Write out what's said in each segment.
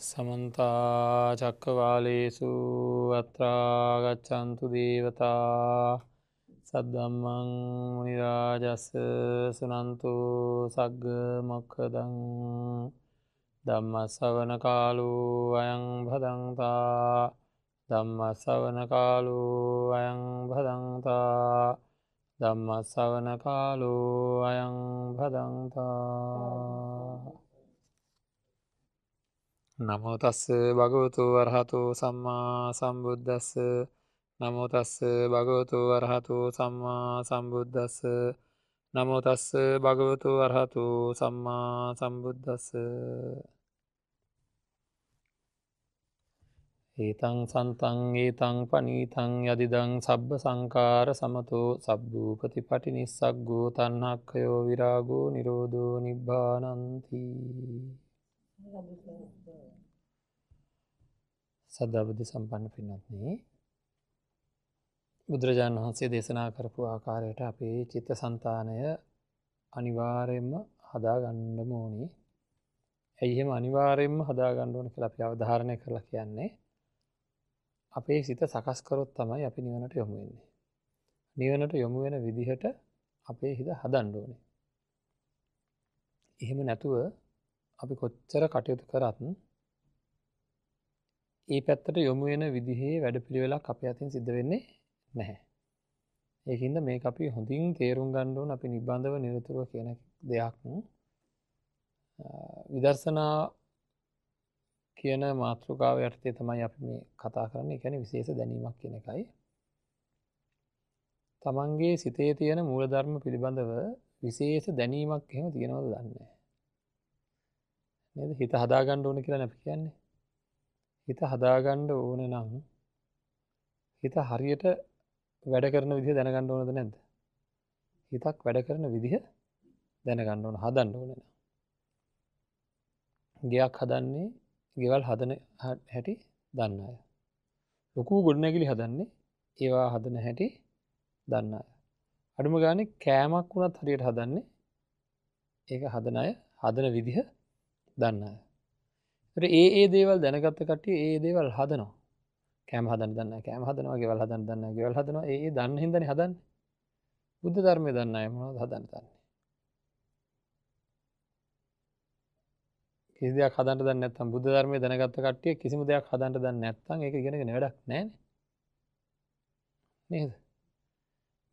සමන්ත චක්කවාලේසු අත්‍රා ගච්ඡන්තු දේවතා සද්දම්මං මුනි රාජස් සුනන්තු සග්ග මොක්ඛදං ධම්ම ශ්‍රවණ කාලෝ අයං භදංතා ධම්ම ශ්‍රවණ කාලෝ අයං භදංතා ධම්ම ශ්‍රවණ කාලෝ අයං භදංතා. නමෝ තස්ස භගවතු වරහතෝ සම්මා සම්බුද්දස්ස. නමෝ තස්ස භගවතු වරහතෝ සම්මා සම්බුද්දස්ස. නමෝ තස්ස භගවතු වරහතෝ සම්මා සම්බුද්දස්ස. ඒතං සන්තං ඒතං පනීතං යදිදං සබ්බ සංකාර සමතෝ සබ්බූපතිපටි නිස්සග්ගෝ තණ්හක්ඛයෝ විරාගෝ නිරෝධෝ නිබ්බානන්ති. සද්ධා බුද්ධ සම්පන්න පින්වත්නි, බුදුරජාණන් වහන්සේ දේශනා කරපු ආකාරයට අපේ චිත්තසංතානය අනිවාර්යයෙන්ම හදාගන්නම ඕනි. ඇයි එහෙම අනිවාර්යයෙන්ම හදාගන්න ඕන කියලා අපි අවධාරණය කරලා කියන්නේ? අපේ සිත සකස් කරොත් තමයි අපි නිවනට යොමු වෙන්නේ. නිවනට යොමු වෙන විදිහට අපේ හිත හදන්න ඕනේ. එහෙම නැතුව අපි කොච්චර කටයුතු කරත් ඒ පැත්තට යොමු වෙන විදිහේ වැඩපිළිවෙලක් අපේ අතින් සිද්ධ වෙන්නේ නැහැ. ඒකින්ද මේක අපි හොඳින් තේරුම් ගන්න ඕන. අපි නිබඳව නිරතුරුව කියන දෙයක් විදර්ශනා කියන මාතෘකාව යටතේ තමයි අපි මේ කතා කරන්නේ. ඒ කියන්නේ විශේෂ දැනීමක් කියන එකයි. තමන්ගේ සිතේ තියෙන මූලධර්ම පිළිබඳව විශේෂ දැනීමක් එහෙම තියෙනවද දන්නේ නැහැ. නේද? හිත හදාගන්න ඕන කියලා අපි කියන්නේ. හිත හදාගන්න ඕන නම් හිත හරියට වැඩ කරන විදිහ දැනගන්න ඕනද නැද්ද? හිතක් වැඩ කරන විදිහ දැනගන්න ඕන, හදන්න ඕන නම්. ගෙයක් හදන්නේ ගෙවල් හදන හැටි දන්න අය. ලොකු ගොඩනැගිලි හදන්නේ ඒවා හදන හැටි දන්න අය. අඩුම ගානේ කෑමක් වුණත් හරියට හදන්නේ ඒක හදන අය, හදන විදිහ දන්න අය. ඒතර ඒ ඒ දේවල් දැනගත්ත කට්ටිය ඒ ඒ දේවල් හදනවා. කෑම හදන්න දන්න අය කෑම හදනවා, ගෙවල් හදන්න දන්න අය ගෙවල් හදනවා. ඒ ඒ දන්න හින්දානේ හදන්නේ. බුද්ධ ධර්මය දන්න අය මොනවද හදන්න දන්නේ? කිසි දෙයක් හදන්න දන්නේ නැත්නම්, බුද්ධ ධර්මය දැනගත්ත කට්ටිය කිසිම දෙයක් හදන්න දන්නේ නැත්නම් ඒක ඉගෙනගෙන වැඩක් නැහැනේ. නේද?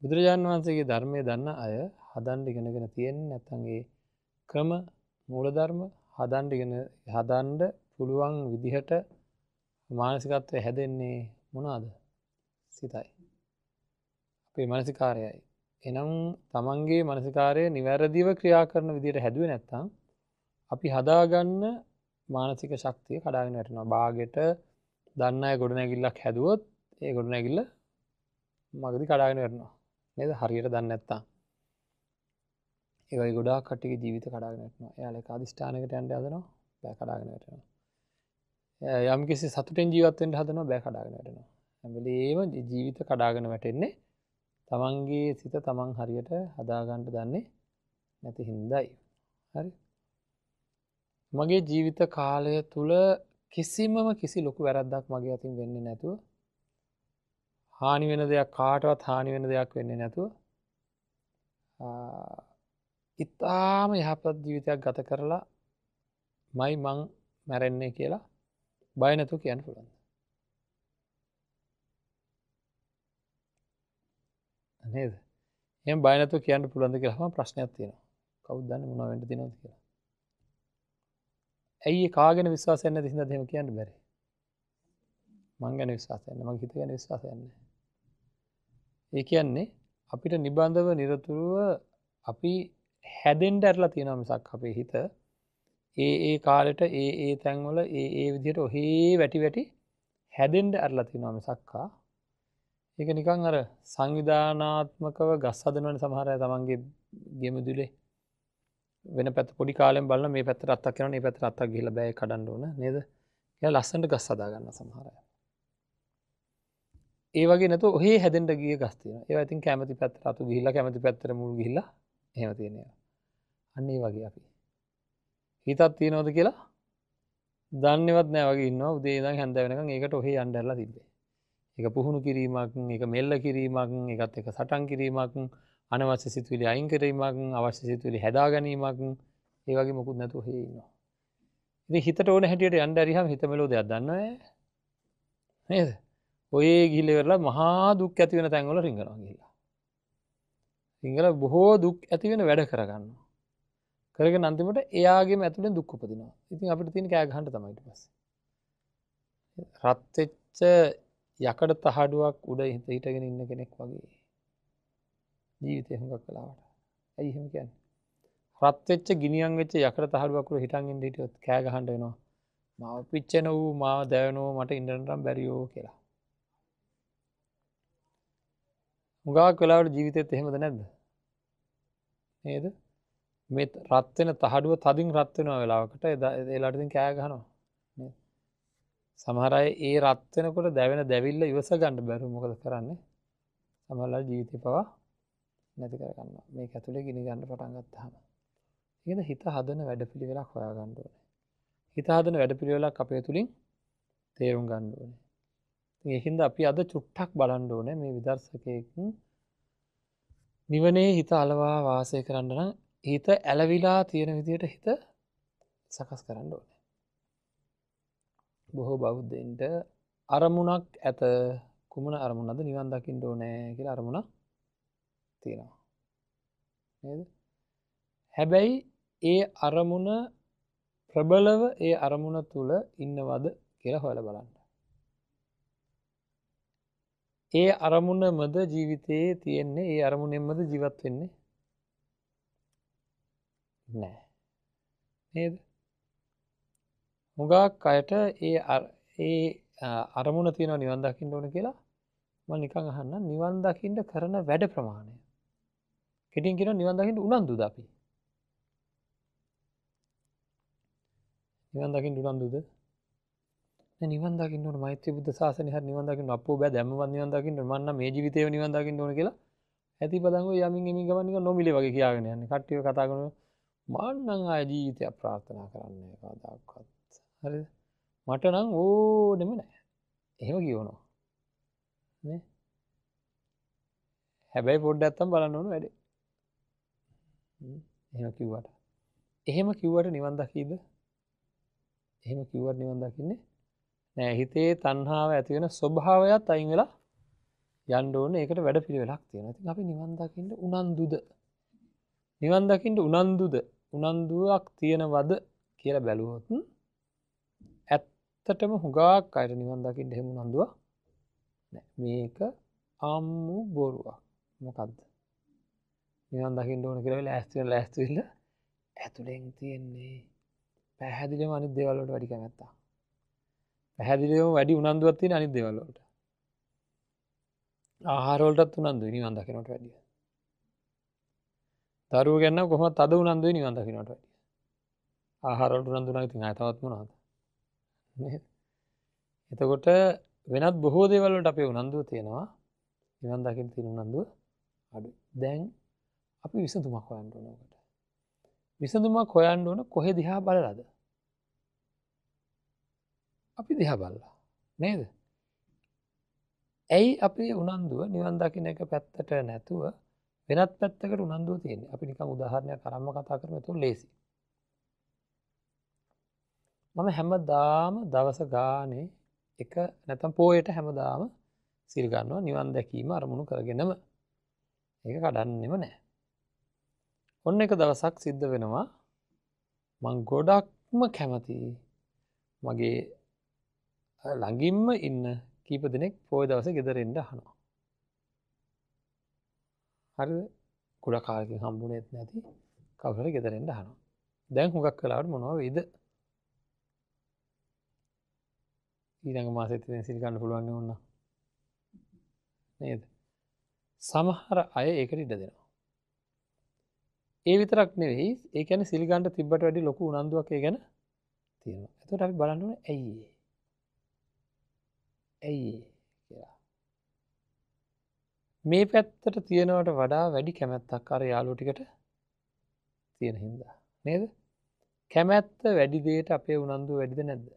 බුදුරජාණන් වහන්සේගේ ධර්මය දන්න අය හදන්න ඉගෙනගෙන තියෙන්නේ නැත්නම් ඒ ක්‍රම මූලධර්ම හදන්න ඉගෙන හදන්න පුළුවන් විදිහට මානසිකත්වය හැදෙන්නේ මොනවාද? සිතයි. අපේ මානසිකාරයයි. එහෙනම් තමන්ගේ මානසිකාරය නිවැරදිව ක්‍රියා කරන විදිහට හැදුවේ නැත්නම් අපි හදාගන්න මානසික ශක්තිය කඩාගෙන වැටෙනවා. බාගෙට දන්න අය ගොඩනැගිල්ලක් හැදුවොත් ඒ ගොඩනැගිල්ල මගදී කඩාගෙන වැටෙනවා. නේද? හරියට දන්නේ නැත්නම්. ඒ වගේ ගොඩාක් කට්ටියගේ ජීවිත කඩාගෙන වැටෙනවා. එයාලා එක අදිෂ්ඨානයකට යන්න හදනවා, බෑ කඩාගෙන වැටෙනවා. යම් කිසි සතුටෙන් ජීවත් වෙන්න හදනවා, බෑ කඩාගෙන වැටෙනවා. හැම වෙලේම ජීවිත කඩාගෙන වැටෙන්නේ තමන්ගේ සිත තමන් හරියට හදාගන්න දන්නේ නැති හින්දායි. හරි. මගේ ජීවිත කාලය තුල කිසිමම කිසි ලොකු වැරද්දක් මගේ අතින් වෙන්නේ නැතුව, හානි වෙන දෙයක් කාටවත් හානි වෙන දෙයක් වෙන්නේ නැතුව, ඉතාම යහපත් ජීවිතයක් ගත කරලා මයි මං මැරෙන්නේ කියලා බය නැතුව කියන්න පුළුවන්. නේද? එහෙම බය නැතුව කියන්න පුළුවන්ද කියලා අහම ප්‍රශ්නයක් තියෙනවා. කවුද දන්නේ මොනවා වෙන්න තියෙනවද කියලා. ඇයි ඒ කාගෙන විශ්වාසයක් නැති හින්දාද එහෙම කියන්න බැරි? මං ගැන විශ්වාසයක් නැහැ. මගේ හිත ගැන විශ්වාසයක් නැහැ. ඒ කියන්නේ අපිට නිබඳව නිරතුරුව අපි හැදෙන්න ඇරලා තියෙනවා මිසක් අපේ හිත ඒ ඒ කාලෙට ඒ ඒ තැන්වල ඒ ඒ විදිහට ඔහේ වැටි වැටි හැදෙන්න ඇරලා තියෙනවා මිසක්කා. ඒක නිකන් අර සංවිධානාත්මකව ගස් හදනවනේ සමහර අය තමන්ගේ ගෙමුදුලේ වෙන පැත්ත පොඩි කාලෙන් බලන මේ පැත්තට අත්තක් යනවා, මේ පැත්තට අත්තක් ගිහිල්ලා බෑ කඩන්න ඕන නේද කියලා ලස්සනට ගස් හදා ගන්නවා සමහර අය. ඒ වගේ නැතුව ඔහේ හැදෙන්න ගිය ගස් තියෙනවා. ඒවා ඉතින් කැමති පැත්තට අතු ගිහිල්ලා කැමති පැත්තට මුල් ගිහිල්ලා එහෙම තියෙන ඒවා. අන්න ඒ වගේ අපි හිතක් තියනවද කියලා දන්නේවත් නෑ වගේ ඉන්නවා. උදේ ඉඳන් හැන්ද වෙනකන් ඒකට ඔහේ යන්න ඇරලා තිබ්බේ. ඒක පුහුණු කිරීමක්, ඒක මෙල්ල කිරීමක්, ඒකත් එක්ක සටන් කිරීමක්, අනවශ්‍ය සිතුවිලි අයින් කිරීමක්, අවශ්‍ය සිතුවිලි හැදා ගැනීමක්, ඒ වගේ මොකුත් නැතුව ඔහේ ඉන්නවා. ඉතින් හිතට ඕන හැටියට යන්න ඇරියාම හිත මෙලෝ දෙයක් දන්නව නේද? ඔය ගිහිල්ලා ඉවරලා මහා දුක් ඇති වෙන තැන්වල රිංගනවා ගිහිල්ලා. රිංගලා බොහෝ දුක් ඇති වෙන වැඩ කරගන්නවා. කරගෙන අන්තිමට එයාගේම ඇතුලෙන් දුක් උපදිනවා. ඉතින් අපිට තියෙන කෑ ගහන්න තමයි ඊට පස්සේ. රත් වෙච්ච යකඩ තහඩුවක් උඩ හිටගෙන ඉන්න කෙනෙක් වගේ ජීවිතේ හුඟක් වෙලාවට. ඇයි එහෙම කියන්නේ? රත් වෙච්ච ගිනියම් වෙච්ච යකඩ තහඩුවක් උඩ හිටන් ඉන්න හිටියොත් කෑ ගහන්න වෙනවා. මාව පිච්චෙන වූ මාව දැවෙනෝ මට ඉන්න නම් බැරියෝ කියලා. හුඟක් වෙලාවට ජීවිතේත් එහෙමද නැද්ද? නේද? මේ රත් වෙන තහඩුව තදින් රත් වෙනවා වෙලාවකට ඒ වෙලාවට ඉතින් කෑ ගහනවා නේද? සමහර අය ඒ රත් වෙනකොට දැවෙන දැවිල්ල ඉවස ගන්න බැරුව මොකද කරන්නේ? සමහර ජීවිතේ පවා නැති කර ගන්නවා. මේක ඇතුලේ ගිනි ගන්න පටන් ගත්තාම. ඒකද හිත හදන වැඩපිළිවෙලක් හොයා ගන්න ඕනේ. හිත හදන වැඩපිළිවෙලක් අපේ තුලින් තේරුම් ගන්න ඕනේ. ඉතින් ඒකින්ද අපි අද චුට්ටක් බලන්න ඕනේ මේ විදර්ශකයෙක් නිවනේ හිත අලවා වාසය කරන්න නම් හිත ඇලවිලා තියෙන විදියට හිත සකස් කරන්න ඕනේ. බොහෝ බෞද්ධයින්ට අරමුණක් ඇත. කුමන අරමුණක්ද? නිවන් දකින්න ඕනේ කියලා අරමුණක් තියෙනවා. නේද? හැබැයි ඒ අරමුණ ප්‍රබලව ඒ අරමුණ තුල ඉන්නවද කියලා හොයලා බලන්න. ඒ අරමුණමද ජීවිතයේ තියෙන්නේ? ඒ අරමුණෙන්මද ජීවත් වෙන්නේ? නෑ. නේද? හුඟක් අයට ඒ ඒ අරමුණ තියෙනවා නිවන් දකින්න ඕන කියලා. මම නිකන් අහන්නම් නිවන් දකින්න කරන වැඩ ප්‍රමාණය. කෙටියෙන් කියනවා නිවන් දකින්න උනන්දුද අපි? නිවන් දකින්න උනන්දුද? නෑ නිවන් දකින්න ඕන මෛත්‍රී බුද්ධ ශාසනය හරි නිවන් දකින්න අප්පෝ බෑ දැම්මවත් නිවන් දකින්න ඕන මං නම් මේ ජීවිතේම නිවන් දකින්න ඕන කියලා ඇති පදන් ඔය යමින් එමින් ගමන් නිකන් නොමිලේ වගේ කියාගෙන යන්නේ. කට්ටියව කතා කරනවා මං නම් ආය ජීවිතයක් ප්‍රාර්ථනා කරන්නේ නෑ කවදාකවත්. හරිද? මට නම් ඕනෙම නෑ. එහෙම කියවනවා. නේ? හැබැයි පොඩ්ඩක් නැත්තම් බලන්න ඕන වැඩේ. එහෙම කිව්වට. එහෙම කිව්වට නිවන් දකීද? එහෙම කිව්වට නිවන් දකින්නේ නෑ. හිතේ තණ්හාව ඇති වෙන ස්වභාවයත් අයින් වෙලා යන්න ඕනේ. ඒකට වැඩ පිළිවෙලක් තියෙනවා. ඉතින් අපි නිවන් දකින්න උනන්දුද? නිවන් දකින්න උනන්දුද? උනන්දුවක් තියෙනවද කියලා බැලුවොත් ඇත්තටම හුඟක් අයට නිවන් දකින්න එහෙම උනන්දුවක් නෑ. මේක අම්මු බොරුවක්. මොකද්ද? නිවන් දකින්න ඕන කියලා ලෑස්ති වෙන ලෑස්ති වෙලා ඇතුලෙන් තියෙන්නේ පැහැදිලිවම අනිත් දේවල් වලට වැඩි කැමැත්තක්. පැහැදිලිවම වැඩි උනන්දුවක් තියෙන අනිත් දේවල් වලට. ආහාර වලටත් උනන්දුයි නිවන් දකින්නට වැඩිය. දරුවෝ ගැන නම් කොහොමද තද උනන්දුයි නිවන් දකින්නට වැඩිය. ආහාර වලට උනන්දු නම් ඉතින් ආය තවත් මොනවද? නේද? එතකොට වෙනත් බොහෝ දේවල් වලට අපේ උනන්දුව තියෙනවා. නිවන් දකින්න තියෙන උනන්දුව අඩුයි. දැන් අපි විසඳුමක් හොයන්න ඕන ඔකට. විසඳුමක් හොයන්න ඕන කොහෙ දිහා බලලාද? අපි දිහා බලලා නේද? ඇයි අපේ උනන්දුව නිවන් දකින්න එක පැත්තට නැතුව වෙනත් පැත්තකට උනන්දුව තියෙන්නේ? අපි නිකන් උදාහරණයක් අරන්ම කතා කරමු, එතකොට ලේසි. මම හැමදාම දවස ගානේ එක නැත්නම් පොයට හැමදාම සිල් ගන්නවා නිවන් දැකීම අරමුණු කරගෙනම. ඒක කඩන්නෙම නෑ. ඔන්න එක දවසක් සිද්ධ වෙනවා මං ගොඩක්ම කැමති මගේ ළඟින්ම ඉන්න කීප දෙනෙක් පොය දවසේ ගෙදර එන්න අහනවා. හරිද? ගොඩක් කාලෙකින් හම්බුනේත් නැති කවුරු හරි ගෙදර එන්න අහනවා. දැන් හුඟක් වෙලාවට මොනවා වෙයිද? ඊළඟ මාසෙත් ඉතින් සිල් ගන්න පුළුවන් නේ ඕන්න. නේද? සමහර අය ඒකට ඉඩ දෙනවා. ඒ විතරක් නෙවෙයි, ඒ කියන්නේ සිල් ගන්න තිබ්බට වැඩි ලොකු උනන්දුවක් ඒ ගැන තියෙනවා. එතකොට අපි බලන්න ඕනේ ඇයි ඒ? ඇයි ඒ කියලා. මේ පැත්තට තියෙනවට වඩා වැඩි කැමැත්තක් අර යාළුවෝ ටිකට තියෙන හින්දා නේද? කැමැත්ත වැඩි දෙයට අපේ උනන්දුව වැඩිද නැද්ද?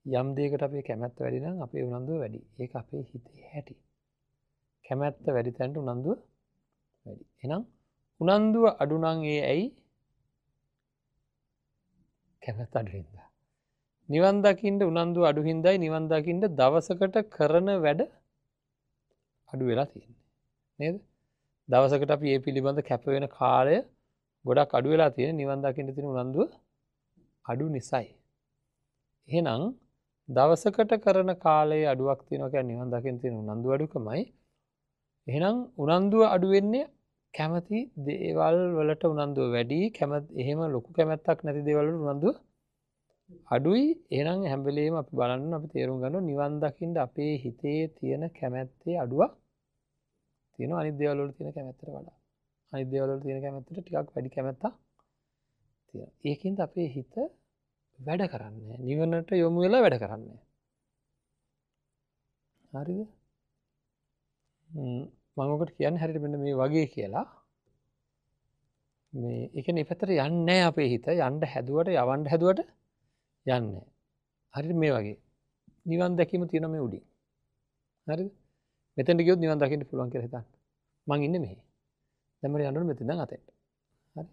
යම් දෙයකට අපේ කැමැත්ත වැඩි නම් අපේ උනන්දුව වැඩි. ඒක අපේ හිතේ හැටි. කැමැත්ත වැඩි තැනට උනන්දුව වැඩි. එහෙනම් උනන්දුව අඩු නම් ඒ ඇයි? කැමැත්ත අඩු හින්දා. නිවන් දකින්න උනන්දුව අඩු හින්දායි නිවන් දකින්න දවසකට කරන වැඩ අඩු වෙලා තියෙන්නේ. නේද? දවසකට අපි ඒ පිළිබඳ කැප වෙන කාලය ගොඩක් අඩු වෙලා තියෙන නිවන් දකින්න තියෙන උනන්දුව අඩු නිසායි. එහෙනම් දවසකට කරන කාලයේ අඩුවක් තියෙනවා කියන්නේ නිවන් දකින්න තියෙන උනන්දුව අඩුකමයි. එහෙනම් උනන්දුව අඩු වෙන්නේ කැමති දේවල් වලට උනන්දුව වැඩි, එහෙම ලොකු කැමැත්තක් නැති දේවල් වලට උනන්දුව අඩුයි. එහෙනම් හැම වෙලේම අපි බලන්න අපි තේරුම් ගන්න නිවන් දකින්න අපේ හිතේ තියෙන කැමැත්තේ අඩුවක් තියෙනවා අනිත් දේවල් වල තියෙන කැමැත්තට වඩා. අනිත් දේවල් වල තියෙන කැමැත්තට ටිකක් වැඩි කැමැත්තක් තියෙනවා. ඒකින්ද අපේ හිත වැඩ කරන්නේ නිවනට යොමු වෙලා වැඩ කරන්නේ. හරිද? මම ඔකට කියන්නේ හරියට මෙන්න මේ වගේ කියලා. මේ ඒ කියන්නේ මේ පැත්තට යන්නේ නැහැ අපේ හිත. යන්න හැදුවට යවන්න හැදුවට යන්නේ නැහැ. හරියට මේ වගේ. නිවන් දැකීම තියෙනවා මේ උඩින්. හරිද? මෙතෙන්ට ගියොත් නිවන් දකින්න පුළුවන් කියලා හිතන්න. මං ඉන්නේ මෙහි. දැන් මට යන්න ඕනේ මෙතෙන් ඉඳන් අතෙන්ට. හරි.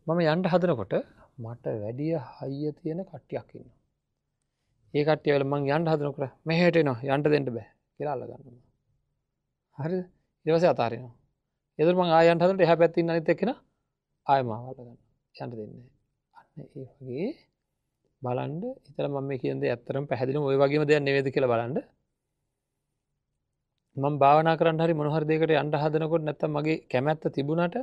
මම යන්න හදනකොට මට වැඩිය හයිය තියෙන කට්ටියක් ඉන්නවා. ඒ කට්ටිය වෙල මං යන්න හදනකොට මෙහෙට එනවා යන්න දෙන්න බෑ කියලා අල්ල ගන්නවා. හරිද? ඊට පස්සේ අතාරිනවා. ඒතර මං ආයෙ යන්න හදනකොට එහා පැත්තේ ඉන්න අනිත් එක්කෙනා ආයෙ මාව අල්ල ගන්නවා. යන්න දෙන්නේ නැහැ. අන්න ඒ වගේ බලන්න හිතලා මම මේ කියන දේ ඇත්තටම පැහැදිලිවම ඔය වගේම දෙයක් නෙවෙයිද කියලා බලන්න. මම භාවනා කරන්න හරි මොන හරි දෙයකට යන්න හදනකොට නැත්තම් මගේ කැමැත්ත තිබුණාට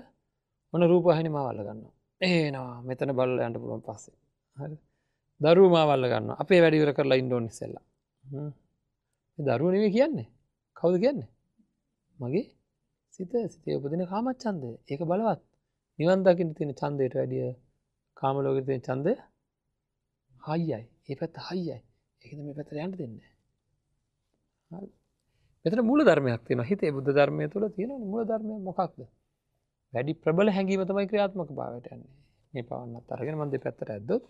මොන රූපවාහිනිය මාව අල්ල ගන්නවා. එනවා මෙතන බලලා යන්න පුළුවන් පස්සේ. හරි. දරුවෝ මාව අල්ල ගන්නවා. අපේ වැඩ ඉවර කරලා ඉන්න ඕන ඉස්සෙල්ලා. මේ දරුවෝ නෙවෙයි කියන්නේ. කවුද කියන්නේ? මගේ සිත. සිතේ උපදින කාමච්ඡන්දය. ඒක බලවත්. නිවන් දකින්න තියෙන ඡන්දයට වැඩිය කාම ලෝකේ තියෙන ඡන්දය හයියයි. ඒ පැත්ත හයියයි. ඒකද මේ පැත්තට යන්න දෙන්නේ නැහැ. හරි. මෙතන මූල ධර්මයක් තියෙනවා. හිතේ බුද්ධ ධර්මය තුළ තියෙනවනේ මූල ධර්මය මොකක්ද? වැඩි ප්‍රබල හැඟීම තමයි ක්‍රියාත්මක භාවයට යන්නේ. මේ පවන්නත් අරගෙන මම දෙපැත්තට ඇද්දොත්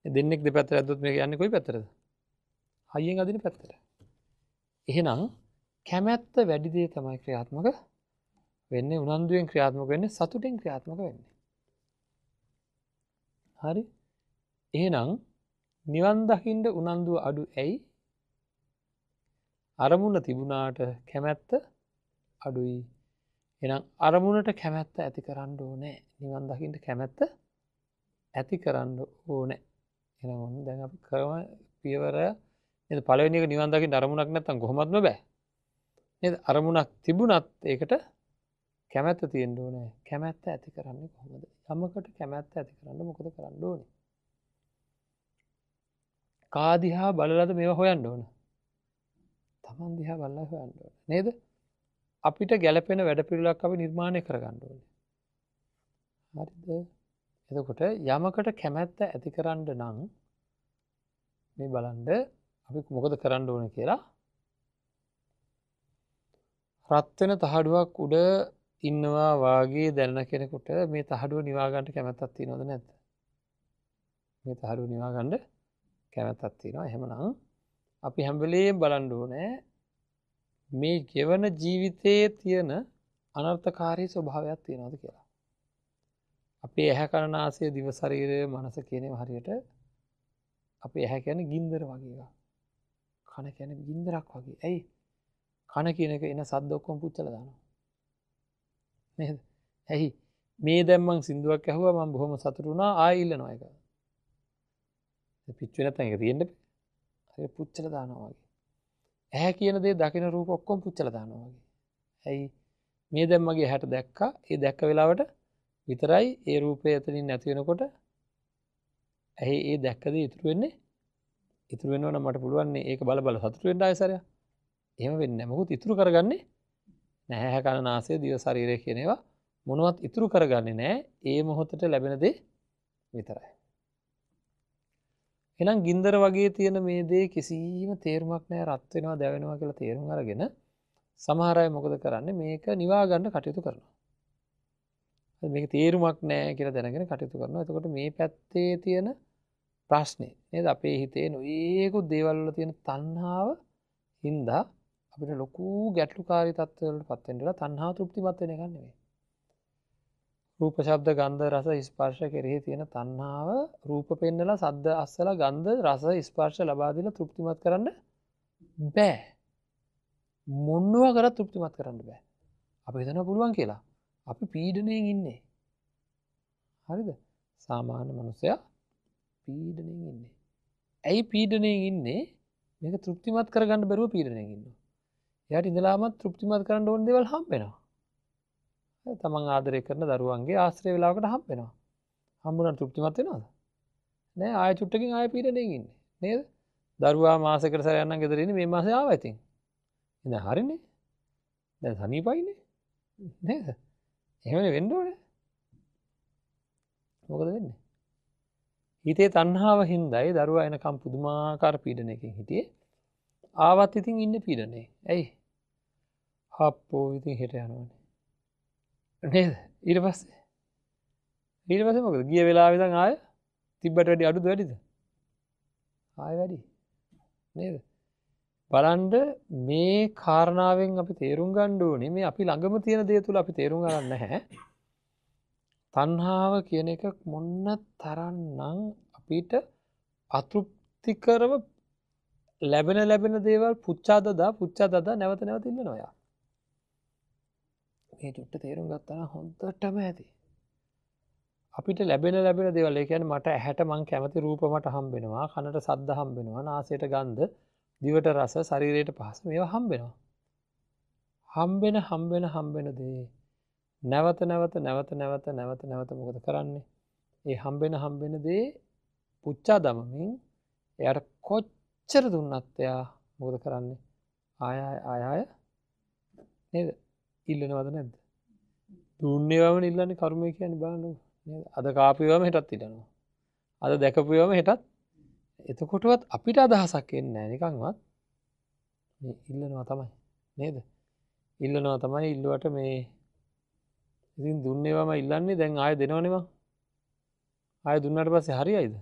මේ දෙන්නෙක් දෙපැත්තට ඇද්දොත් මේක යන්නේ කොයි පැත්තටද? හයියෙන් අදින පැත්තට. එහෙනම් කැමැත්ත වැඩි දේ තමයි ක්‍රියාත්මක වෙන්නේ. උනන්දුවෙන් ක්‍රියාත්මක වෙන්නේ, සතුටෙන් ක්‍රියාත්මක වෙන්නේ. හරි? එහෙනම් නිවන් දකින්න උනන්දුව අඩු ඇයි? අරමුණ තිබුණාට කැමැත්ත අඩුයි. එහෙනම් අරමුණට කැමැත්ත ඇති කරන්න ඕනේ. නිවන් දකින්න කැමැත්ත ඇති කරන්න ඕනේ. එහෙනම් ඔන්න දැන් අපි ක්‍රම පියවර නේද? පළවෙනි එක නිවන් දකින්න අරමුණක් නැත්තම් කොහොමත්ම බෑ. නේද? අරමුණක් තිබුණත් ඒකට කැමැත්ත තියෙන්න ඕනේ. කැමැත්ත ඇති කරන්නේ කොහොමද? යමකට කැමැත්ත ඇති කරන්න මොකද කරන්න ඕනේ? කා දිහා බලලාද මේවා හොයන්න ඕන? තමන් දිහා බලලා හොයන්න ඕන. නේද? අපිට ගැළපෙන වැඩපිළිවෙලක් අපි නිර්මාණය කරගන්න ඕනේ. හරිද? එතකොට යමකට කැමැත්ත ඇති කරන්න නම් මේ බලන්න අපි මොකද කරන්න ඕනේ කියලා. රත් වෙන තහඩුවක් උඩ ඉන්නවා වාගේ දැනන කෙනෙකුට මේ තහඩුව නිවා ගන්න කැමැත්තක් තියෙනවද නැද්ද? මේ තහඩුව නිවා ගන්න කැමැත්තක් තියෙනවා. එහෙමනම් අපි හැම වෙලේම බලන්න ඕනේ මේ ගෙවන ජීවිතයේ තියෙන අනර්ථකාරී ස්වභාවයක් තියෙනවද කියලා. අපේ ඇහැ කන නාසය දිව ශරීරය මනස කියන ඒවා හරියට අපේ ඇහැ කියන්නේ ගින්දර වගේ එකක්. කන කියන්නේ ගින්දරක් වගේ. ඇයි? කන කියන එක එන සද්ද ඔක්කොම පුච්චලා දානවා. නේද? ඇයි? මේ දැන් මං සින්දුවක් ඇහුවා මං බොහොම සතුටු වුණා ආයෙ ඉල්ලනවා ඒක. පිච්චුවේ නැත්නම් ඒක තියෙන්න බෑ. හරියට පුච්චලා දානවා වගේ. ඇහැ කියන දේ දකින රූප ඔක්කොම පුච්චලා දානවා වගේ. ඇයි? මේ දැන් මගේ ඇහැට දැක්කා. ඒ දැක්ක වෙලාවට විතරයි ඒ රූපය එතනින් නැති වෙනකොට ඇහි ඒ දැක්ක දේ ඉතුරු වෙන්නේ. ඉතුරු වෙනවා නම් මට පුළුවන් නේ ඒක බල බල සතුටු වෙන්න ආයෙ සැරයක්. එහෙම වෙන්නේ නැහැ. මොකද ඉතුරු කරගන්නේ නැහැ. ඇහැ කන නාසය දිව ශරීරය කියන ඒවා මොනවත් ඉතුරු කරගන්නේ නැහැ. ඒ මොහොතට ලැබෙන දේ විතරයි. එහෙනම් ගින්දර වගේ තියෙන මේ දේ කිසිම තේරුමක් නැහැ. රත් වෙනවා දැවෙනවා කියලා තේරුම් අරගෙන සමහර අය මොකද කරන්නේ? මේක නිවා ගන්න කටයුතු කරනවා. මේක තේරුමක් නැහැ කියලා දැනගෙන කටයුතු කරනවා. එතකොට මේ පැත්තේ තියෙන ප්‍රශ්නේ නේද? අපේ හිතේ නොයේකුත් දේවල් වල තියෙන තණ්හාව හින්දා අපිට ලොකු ගැටලුකාරී තත්ත්වවලට පත් වෙන්න වෙලා තණ්හාව තෘප්තිමත් වෙන එකක් නෙමෙයි. රූප, ශබ්ද, ගන්ධ, රස, ස්පර්ශ කෙරෙහි තියෙන තණ්හාව රූප පෙන්නලා, සද්ද අස්සලා, ගන්ධ, රස, ස්පර්ශ ලබා දීලා තෘප්තිමත් කරන්න බෑ. මොනවා කරත් තෘප්තිමත් කරන්න බෑ. අපි හිතනවා පුළුවන් කියලා. අපි පීඩණයෙන් ඉන්නේ. හරිද? සාමාන්‍ය මනුස්සයා පීඩණයෙන් ඉන්නේ. ඇයි පීඩණයෙන් ඉන්නේ? මේක තෘප්තිමත් කරගන්න බැරුව පීඩණයෙන් ඉන්නවා. එයාට ඉඳලාම තෘප්තිමත් කරන්න ඕන දේවල් හම්බ වෙනවා. තමන් ආදරය කරන දරුවන්ගේ ආශ්‍රය වෙලාවකට හම්බ වෙනවා. හම්බුනට තෘප්තිමත් වෙනවද? නෑ, ආයෙ චුට්ටකින් ආයෙ පීඩණයෙන් ඉන්නේ. නේද? දරුවා මාසෙකට සැරයක් නම් ගෙදර ඉන්නේ, මේ මාසේ ආවා ඉතින්. ඉතින් හරිනේ. දැන් සනීපයිනේ. නේද? එහෙමනේ වෙන්න ඕනේ. මොකද වෙන්නේ? හිතේ තණ්හාව හින්දායි දරුවා එනකම් පුදුමාකාර පීඩනයකින් හිටියේ. ආවත් ඉතින් ඉන්නේ පීඩනේ. ඇයි? හප්පෝ ඉතින් හෙට යනවනේ. නේද? ඊට පස්සේ මොකද? ගිය වෙලාවෙ ඉඳන් ආය තිබ්බට වැඩි අඩුද වැඩිද? ආය වැඩි. නේද? බලන්න මේ කාරණාවෙන් අපි තේරුම් ගන්න ඕනේ මේ අපි ළඟම තියෙන දේ තුල අපි තේරුම් ගන්න නැහැ. තණ්හාව කියන එක මොන තරම්නම් අපිට අතෘප්තිකරව ලැබෙන ලැබෙන දේවල් පුච්චා දදා පුච්චා දදා නැවත නැවත ඉල්ලනවා යා. මේ චුට්ට තේරුම් ගත්තා නම් හොඳටම ඇති. අපිට ලැබෙන ලැබෙන දේවල්, ඒ කියන්නේ මට ඇහැට මං කැමති රූප මට හම්බ වෙනවා, කනට සද්ද හම්බ වෙනවා, නාසයට ගන්ධ, දිවට රස, ශරීරයට පහස මේවා හම්බ වෙනවා. හම්බෙන හම්බෙන හම්බෙන දේ නැවත නැවත නැවත නැවත නැවත නැවත මොකද කරන්නේ? ඒ හම්බෙන හම්බෙන දේ පුච්චා දමමින් එයාට කොච්චර දුන්නත් එයා මොකද කරන්නේ? ආය ආය ආය නේද? ඉල්ලනවද නැද්ද? දුන්නේවම ඉල්ලන්නේ කර්මය කියන්නේ බලන්නකෝ නේද? අද කාපුවම හෙටත් ඉල්ලනවා. අද දැකපුවම හෙටත්. එතකොටවත් අපිට අදහසක් එන්නේ නැහැ නිකන්වත්. මේ ඉල්ලනවා තමයි නේද? ඉල්ලනවා තමයි. ඉල්ලුවට මේ ඉතින් දුන්නේවම ඉල්ලන්නේ, දැන් ආයෙ දෙනවනේ මං. ආයෙ දුන්නාට පස්සේ හරියයිද?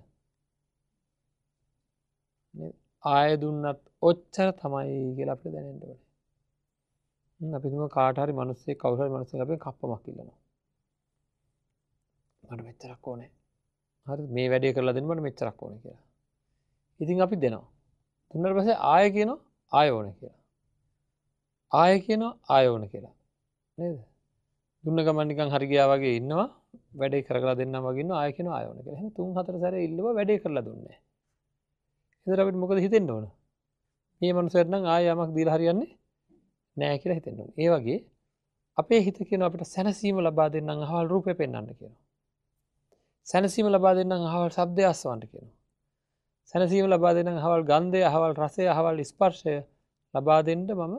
නේද? ආයෙ දුන්නත් ඔච්චර තමයි කියලා අපිට දැනෙන්න ඕනේ. අපි තුම කාට හරි මිනිස්සෙක් කවුරු හරි මිනිස්සෙක් අපෙන් කප්පමක් ඉල්ලනවා. මට මෙච්චරක් ඕනේ. හරිද? මේ වැඩේ කරලා දෙන්න මට මෙච්චරක් ඕනේ කියලා. ඉතින් අපි දෙනවා. දුන්නාට පස්සේ ආයෙ කියනවා ආයෙ ඕනේ කියලා. ආයෙ කියනවා ආයෙ ඕනේ කියලා. නේද? දුන්න ගමන් නිකන් හරි ගියා වගේ ඉන්නවා. වැඩේ කරලා දෙන්නම් වගේ ඉන්නවා. ආයෙ කියනවා ආයෙ ඕනේ කියලා. එහෙනම් තුන් හතර සැරේ ඉල්ලුවා වැඩේ කරලා දුන්නේ නැහැ. ඒතර අපිට මොකද හිතෙන්න ඕන? මේ මනුස්සයාට නම් ආයෙ යමක් දීලා හරියන්නේ නෑ කියලා හිතෙන්න ඕන. ඒ වගේ අපේ හිත කියනවා අපිට සැනසීම ලබා දෙන්නම් අහවල් රූපය පෙන්වන්න කියනවා. සැනසීම ලබා දෙන්නම් අහවල් ශබ්දය අස්වන්න කියනවා. සැනසීම ලබා දෙන්නම් අහවල් ගන්ධය, අහවල් රසය, අහවල් ස්පර්ශය ලබා දෙන්න මම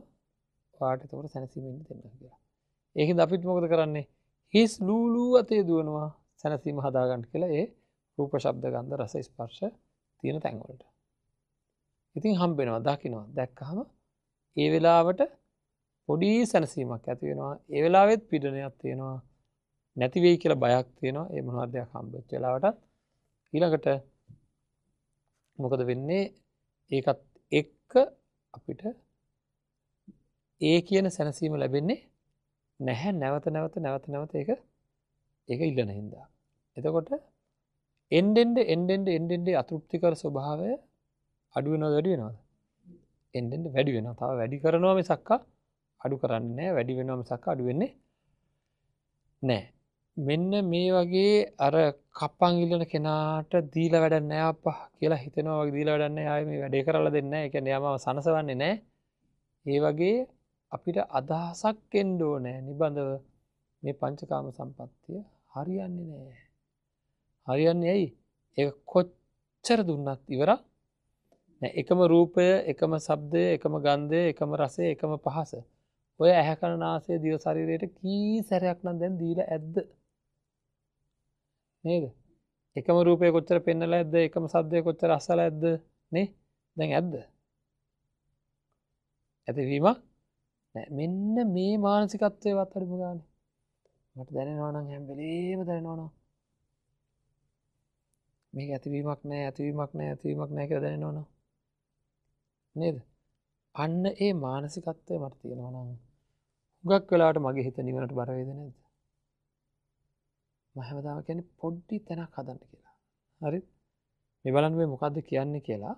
ඔයාට එතකොට සැනසීම ඉන්න දෙන්නම් කියලා. ඒකෙන්ද අපිත් මොකද කරන්නේ? හිස් ලූලු අතේ දුවනවා සැනසීම හදාගන්න කියලා ඒ රූප, ශබ්ද, ගන්ධ, රස, ස්පර්ශ තියෙන තැන් වලට. ඉතින් හම්බ වෙනවා, දකින්නවා. දැක්කහම ඒ වෙලාවට පොඩි සැනසීමක් ඇති වෙනවා. ඒ වෙලාවෙත් පීඩනයක් තියෙනවා. නැති වෙයි කියලා බයක් තියෙනවා. ඒ මොනවද දෙයක් හම්බෙච්ච වෙලාවටත් ඊළඟට මොකද වෙන්නේ? ඒකත් එක්ක අපිට ඒ කියන සැනසීම ලැබෙන්නේ නැහැ. නැවත නැවත නැවත නැවත ඒක ඒක ඉල්ලන හින්දා. එතකොට එන්නෙන්ද එන්නෙන්ද එන්නෙන්ද අතෘප්තිකර ස්වභාවය අඩු වෙනවද වැඩි වෙනවද? එන්නෙන්ද වැඩි වෙනවා. තව වැඩි කරනවා මිසක්ක අඩු කරන්නේ නැහැ. වැඩි වෙනවා මිසක්ක අඩු වෙන්නේ නැහැ. මෙන්න මේ වගේ අර කප්පන් ඉල්ලන කෙනාට දීලා වැඩක් නැහැ අප්පා කියලා හිතෙනවා වගේ දීලා වැඩක් නැහැ. ආයේ මේ වැඩේ කරලා දෙන්නේ නැහැ. ඒ කියන්නේ එයා මාව සනසවන්නේ නැහැ. ඒ වගේ අපිට අදහසක් එන්න ඕනේ නිබඳව මේ පංචකාම සම්පත්තිය හරියන්නේ නැහැ. හරියන්නේ ඇයි? ඒක කොච්චර දුන්නත් ඉවරක් නෑ. එකම රූපය, එකම ශබ්දය, එකම ගන්ධය, එකම රසය, එකම පහස. ඔය ඇහැ කන නාසය දිව ශරීරයට කී සැරයක් නම් දැන් දීලා ඇද්ද? නේද? එකම රූපය කොච්චර පෙන්නලා ඇද්ද? එකම ශබ්දය කොච්චර අස්සලා ඇද්ද? නේ? දැන් ඇද්ද? ඇතිවීමක් නෑ. මෙන්න මේ මානසිකත්වයවත් අඩුම ගානේ. මට දැනෙනවා නම් හැම වෙලේම දැනෙනවා නම් මේක ඇතිවීමක් නෑ, ඇතිවීමක් නෑ, ඇතිවීමක් නෑ කියලා දැනෙනවනම් නේද? අන්න ඒ මානසිකත්වය මට තියෙනවා නම් හුඟක් වෙලාවට මගේ හිත නිවනට බර වේද නැද්ද? මම හැමදාම කියන්නේ පොඩි තැනක් හදන්න කියලා. හරිද? මේ බලන්න මේ මොකද්ද කියන්නේ කියලා.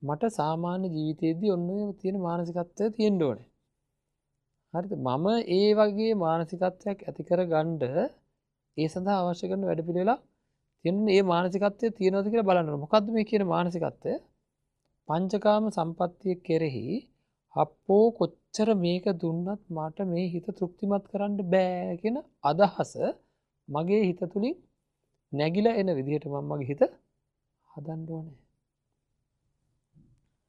මට සාමාන්‍ය ජීවිතයේදී ඔන්න ඔය තියෙන මානසිකත්වය තියෙන්න ඕනේ. හරිද? මම ඒ වගේ මානසිකත්වයක් ඇති කරගන්න ඒ සඳහා අවශ්‍ය කරන වැඩපිළිවෙලක් තියෙන මේ මානසිකත්වය තියෙනවද කියලා බලන්න ඕනේ. මොකද්ද මේ කියන මානසිකත්වය? පංචකාම සම්පත්තිය කෙරෙහි අප්පෝ කොච්චර මේක දුන්නත් මට මේ හිත තෘප්තිමත් කරන්න බෑ කියන අදහස මගේ හිත තුලින් නැගිලා එන විදිහට මම මගේ හිත හදන්න ඕනේ.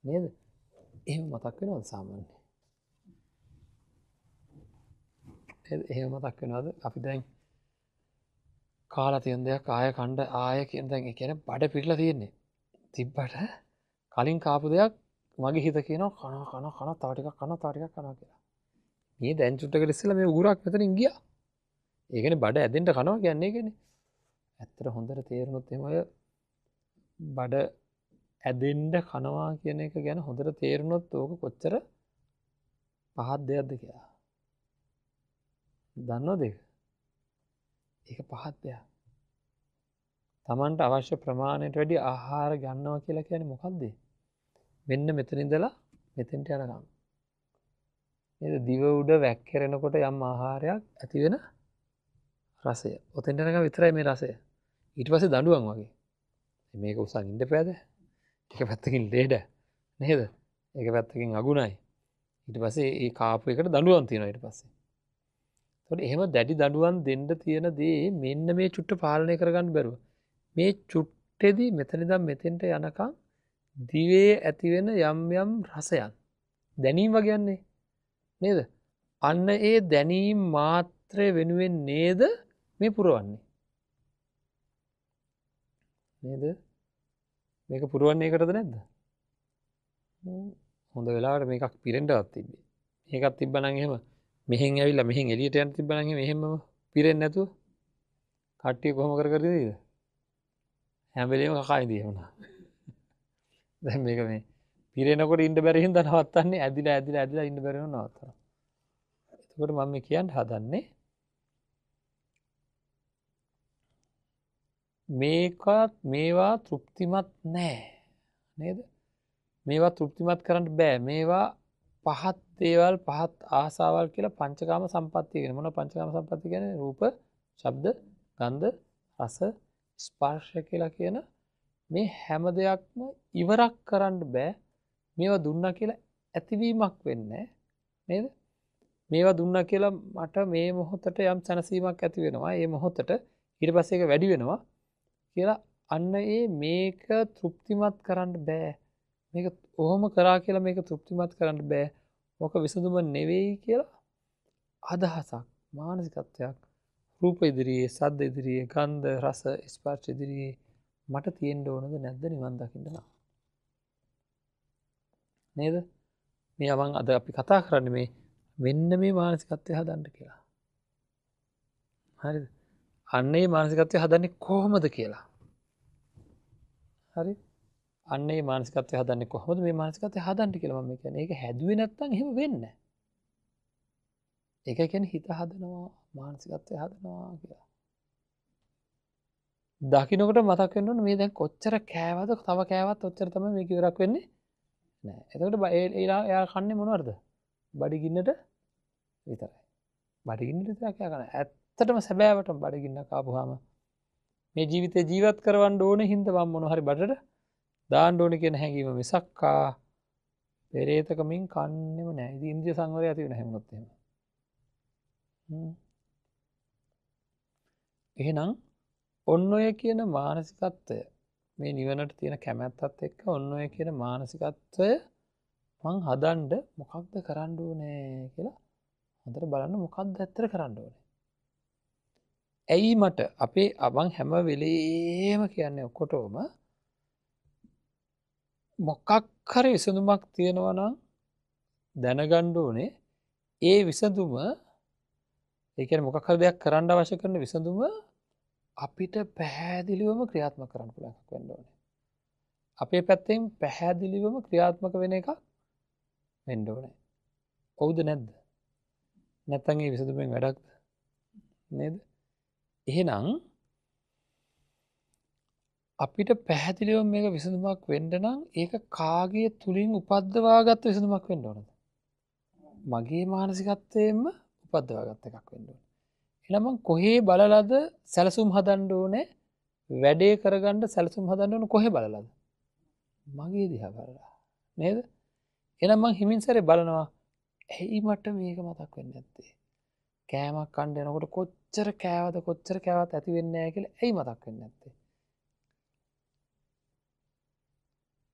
නේද? එහෙම මතක් වෙනවද සාමාන්‍යයෙන්? නේද? එහෙම මතක් වෙනවද? අපි දැන් කාලා තියෙන දෙයක් ආය කණ්ඩ ආය කියන දැන් ඒ කියන්නේ බඩ පිරලා තියෙන්නේ. තිබ්බට කලින් කාපු දෙයක් මගේ හිත කියනවා කනවා කනවා කනවා තව ටිකක් කනවා තව ටිකක් කනවා කියලා. මේ දැන් චුට්ටකට ඉස්සෙල්ලා මේ උගුරක් මෙතනින් ගියා. ඒ කියන්නේ බඩ ඇදෙන්න කනවා කියන්නේ ඒකනේ. ඇත්තට හොඳට තේරුණොත් එහෙම ඔය බඩ ඇදෙන්න කනවා කියන එක ගැන හොඳට තේරුණොත් ඕක කොච්චර පහත් දෙයක්ද කියලා. දන්නවද ඒක? ඒක පහත් දෙයක්. Tamanට අවශ්‍ය ප්‍රමාණයට වැඩි ආහාර ගන්නවා කියලා කියන්නේ මොකද්ද? මෙන්න මෙතන ඉඳලා මෙතෙන්ට යනකම්. නේද? දිව උඩ වැක්කිරෙනකොට යම් ආහාරයක් ඇති වෙන රසය. ඔතෙන්ට යනකම් විතරයි මේ රසය. ඊට පස්සේ දඬුවම් වගේ. මේක උසන් ඉන්න බෑද? එක පැත්තකින් ලේඩ නේද? එක පැත්තකින් අගුණයි. ඊට පස්සේ ඒ කාපු එකට දඬුවම් තියෙනවා ඊට පස්සේ. එතකොට එහෙම දැඩි දඬුවම් දෙන්න තියෙන දේ මෙන්න මේ චුට්ට පාලනය කරගන්න බැරුව. මේ චුට්ටෙදි මෙතන ඉඳන් මෙතෙන්ට යනකම් දිවේ ඇති වෙන යම් යම් රසයන් දැනීම් වගේන්නේ නේද? අන්න ඒ දැනීම් මාත්‍රය වෙනුවෙන් නේද මේ පුරවන්නේ. නේද? මේක පුරවන්නේ ඒකටද නැද්ද? හොඳ වෙලාවට මේකක් පිරෙන්නවත් තිබ්බේ. මේකක් තිබ්බනම් එහෙම මෙහෙන් ඇවිල්ලා මෙහෙන් එළියට යන්න තිබ්බනම් එහෙම එහෙමම පිරෙන්නේ නැතුව කට්ටිය කොහොම කර කර ඉඳීද? හැම වෙලේම කකා ඉඳී එහෙම නා. දැන් මේක මේ පිරෙනකොට ඉන්න බැරි හින්දා නවත්තන්නේ ඇදිලා ඇදිලා ඇදිලා ඉන්න බැරි වුණා නවත්තනවා. එතකොට මම මේ කියන්න හදන්නේ මේකත් මේවා තෘප්තිමත් නෑ නේද? මේවා තෘප්තිමත් කරන්න බෑ. මේවා පහත් දේවල් පහත් ආසාවල් කියලා පංචකාම සම්පත්තිය කියන්නේ. මොන පංචකාම සම්පත්තිය කියන්නේ? රූප, ශබ්ද, ගන්ධ, රස, ස්පර්ශ කියලා කියන මේ හැම දෙයක්ම ඉවරක් කරන්න බෑ. මේවා දුන්නා කියලා ඇතිවීමක් වෙන්නේ නේද? මේවා දුන්නා කියලා මට මේ මොහොතට යම් සැනසීමක් ඇති වෙනවා. ඒ මොහොතට ඊට පස්සේ ඒක වැඩි වෙනවා කියලා අන්න ඒ මේක තෘප්තිමත් කරන්න බෑ. මේක ඔහොම කරා කියලා මේක තෘප්තිමත් කරන්න බෑ. ඕක විසඳුම නෙවෙයි කියලා අදහසක් මානසිකත්වයක් රූප ඉදිරියේ, සද්ද ඉදිරියේ, ගන්ධ, රස, ස්පර්ශ ඉදිරියේ මට තියෙන්න ඕනද නැද්ද නිවන් දකින්න නම්? නේද? මේ මං අද අපි කතා කරන්නේ මේ මෙන්න මේ මානසිකත්වය හදන්න කියලා. හරිද? අන්න ඒ මානසිකත්වය හදන්නේ කොහොමද කියලා. හරි? අන්න ඒ මානසිකත්වය හදන්නේ කොහොමද මේ මානසිකත්වය හදන්න කියලා මම කියන්නේ. ඒක හැදුවේ නැත්නම් එහෙම වෙන්නේ නැහැ. ඒක කියන්නේ හිත හදනවා, මානසිකත්වය හදනවා කියලා. දකින්නකොට මතක් වෙන්න ඕනේ මේ දැන් කොච්චර කෑවද, තව කෑවත් ඔච්චර තමයි මේක ඉවරක් වෙන්නේ නෑ. එතකොට එයා කන්නේ මොනවද? බඩගින්නට විතරයි. බඩගින්නට විතරක් එයා කන්නේ. ඇත්තටම සැබෑවටම බඩගින්නක් ආපුවාම මේ ජීවිතේ ජීවත් කරවන්න ඕනේ හින්දා මම මොන හරි බඩට දාන්න ඕනේ කියන හැඟීම මිසක්කා පෙරේතකමින් කන්නේම නෑ. ඉතින් ඉන්ද්‍රිය සංවරය ඇති වෙන හැමොත් එහෙම. එහෙනම් ඔන්න ඔය කියන මානසිකත්වය මේ නිවනට තියෙන කැමැත්තත් එක්ක ඔන්න ඔය කියන මානසිකත්වය මං හදන්න මොකක්ද කරන්න ඕනේ කියලා හොඳට බලන්න මොකක්ද ඇත්තට කරන්න ඕනේ. ඇයි මට අපේ මං හැම වෙලේම කියන්නේ ඔක්කොටම මොකක් හරි විසඳුමක් තියෙනවා නම් දැනගන්න ඕනේ. ඒ විසඳුම ඒ කියන්නේ මොකක් හරි දෙයක් කරන්න අවශ්‍ය කරන විසඳුම අපිට පැහැදිලිවම ක්‍රියාත්මක කරන්න පුළුවන් එකක් වෙන්න ඕනේ. අපේ පැත්තෙන් පැහැදිලිවම ක්‍රියාත්මක වෙන එකක් වෙන්න ඕනේ. ඔව්ද නැද්ද? නැත්තම් ඒ විසඳුමෙන් වැඩක්ද? නේද? එහෙනම් අපිට පැහැදිලිවම මේක විසඳුමක් වෙන්න නම් ඒක කාගේ තුලින් උපද්දවාගත්ත විසඳුමක් වෙන්න ඕනද? මගේ මානසිකත්වයෙන්ම උපද්දවාගත්ත එකක් වෙන්න ඕනේ. එහෙනම් මං කොහේ බලලාද සැලසුම් හදන්න ඕනේ? වැඩේ කරගන්න සැලසුම් හදන්න ඕන කොහේ බලලාද? මගේ දිහා බලලා. නේද? එහෙනම් මං හිමින් සැරේ බලනවා ඇයි මට මේක මතක් වෙන්නේ නැත්තේ? කෑමක් කන්න යනකොට කොච්චර කෑවද කොච්චර කෑවත් ඇති වෙන්නේ නැහැ කියලා ඇයි මතක් වෙන්නේ නැත්තේ?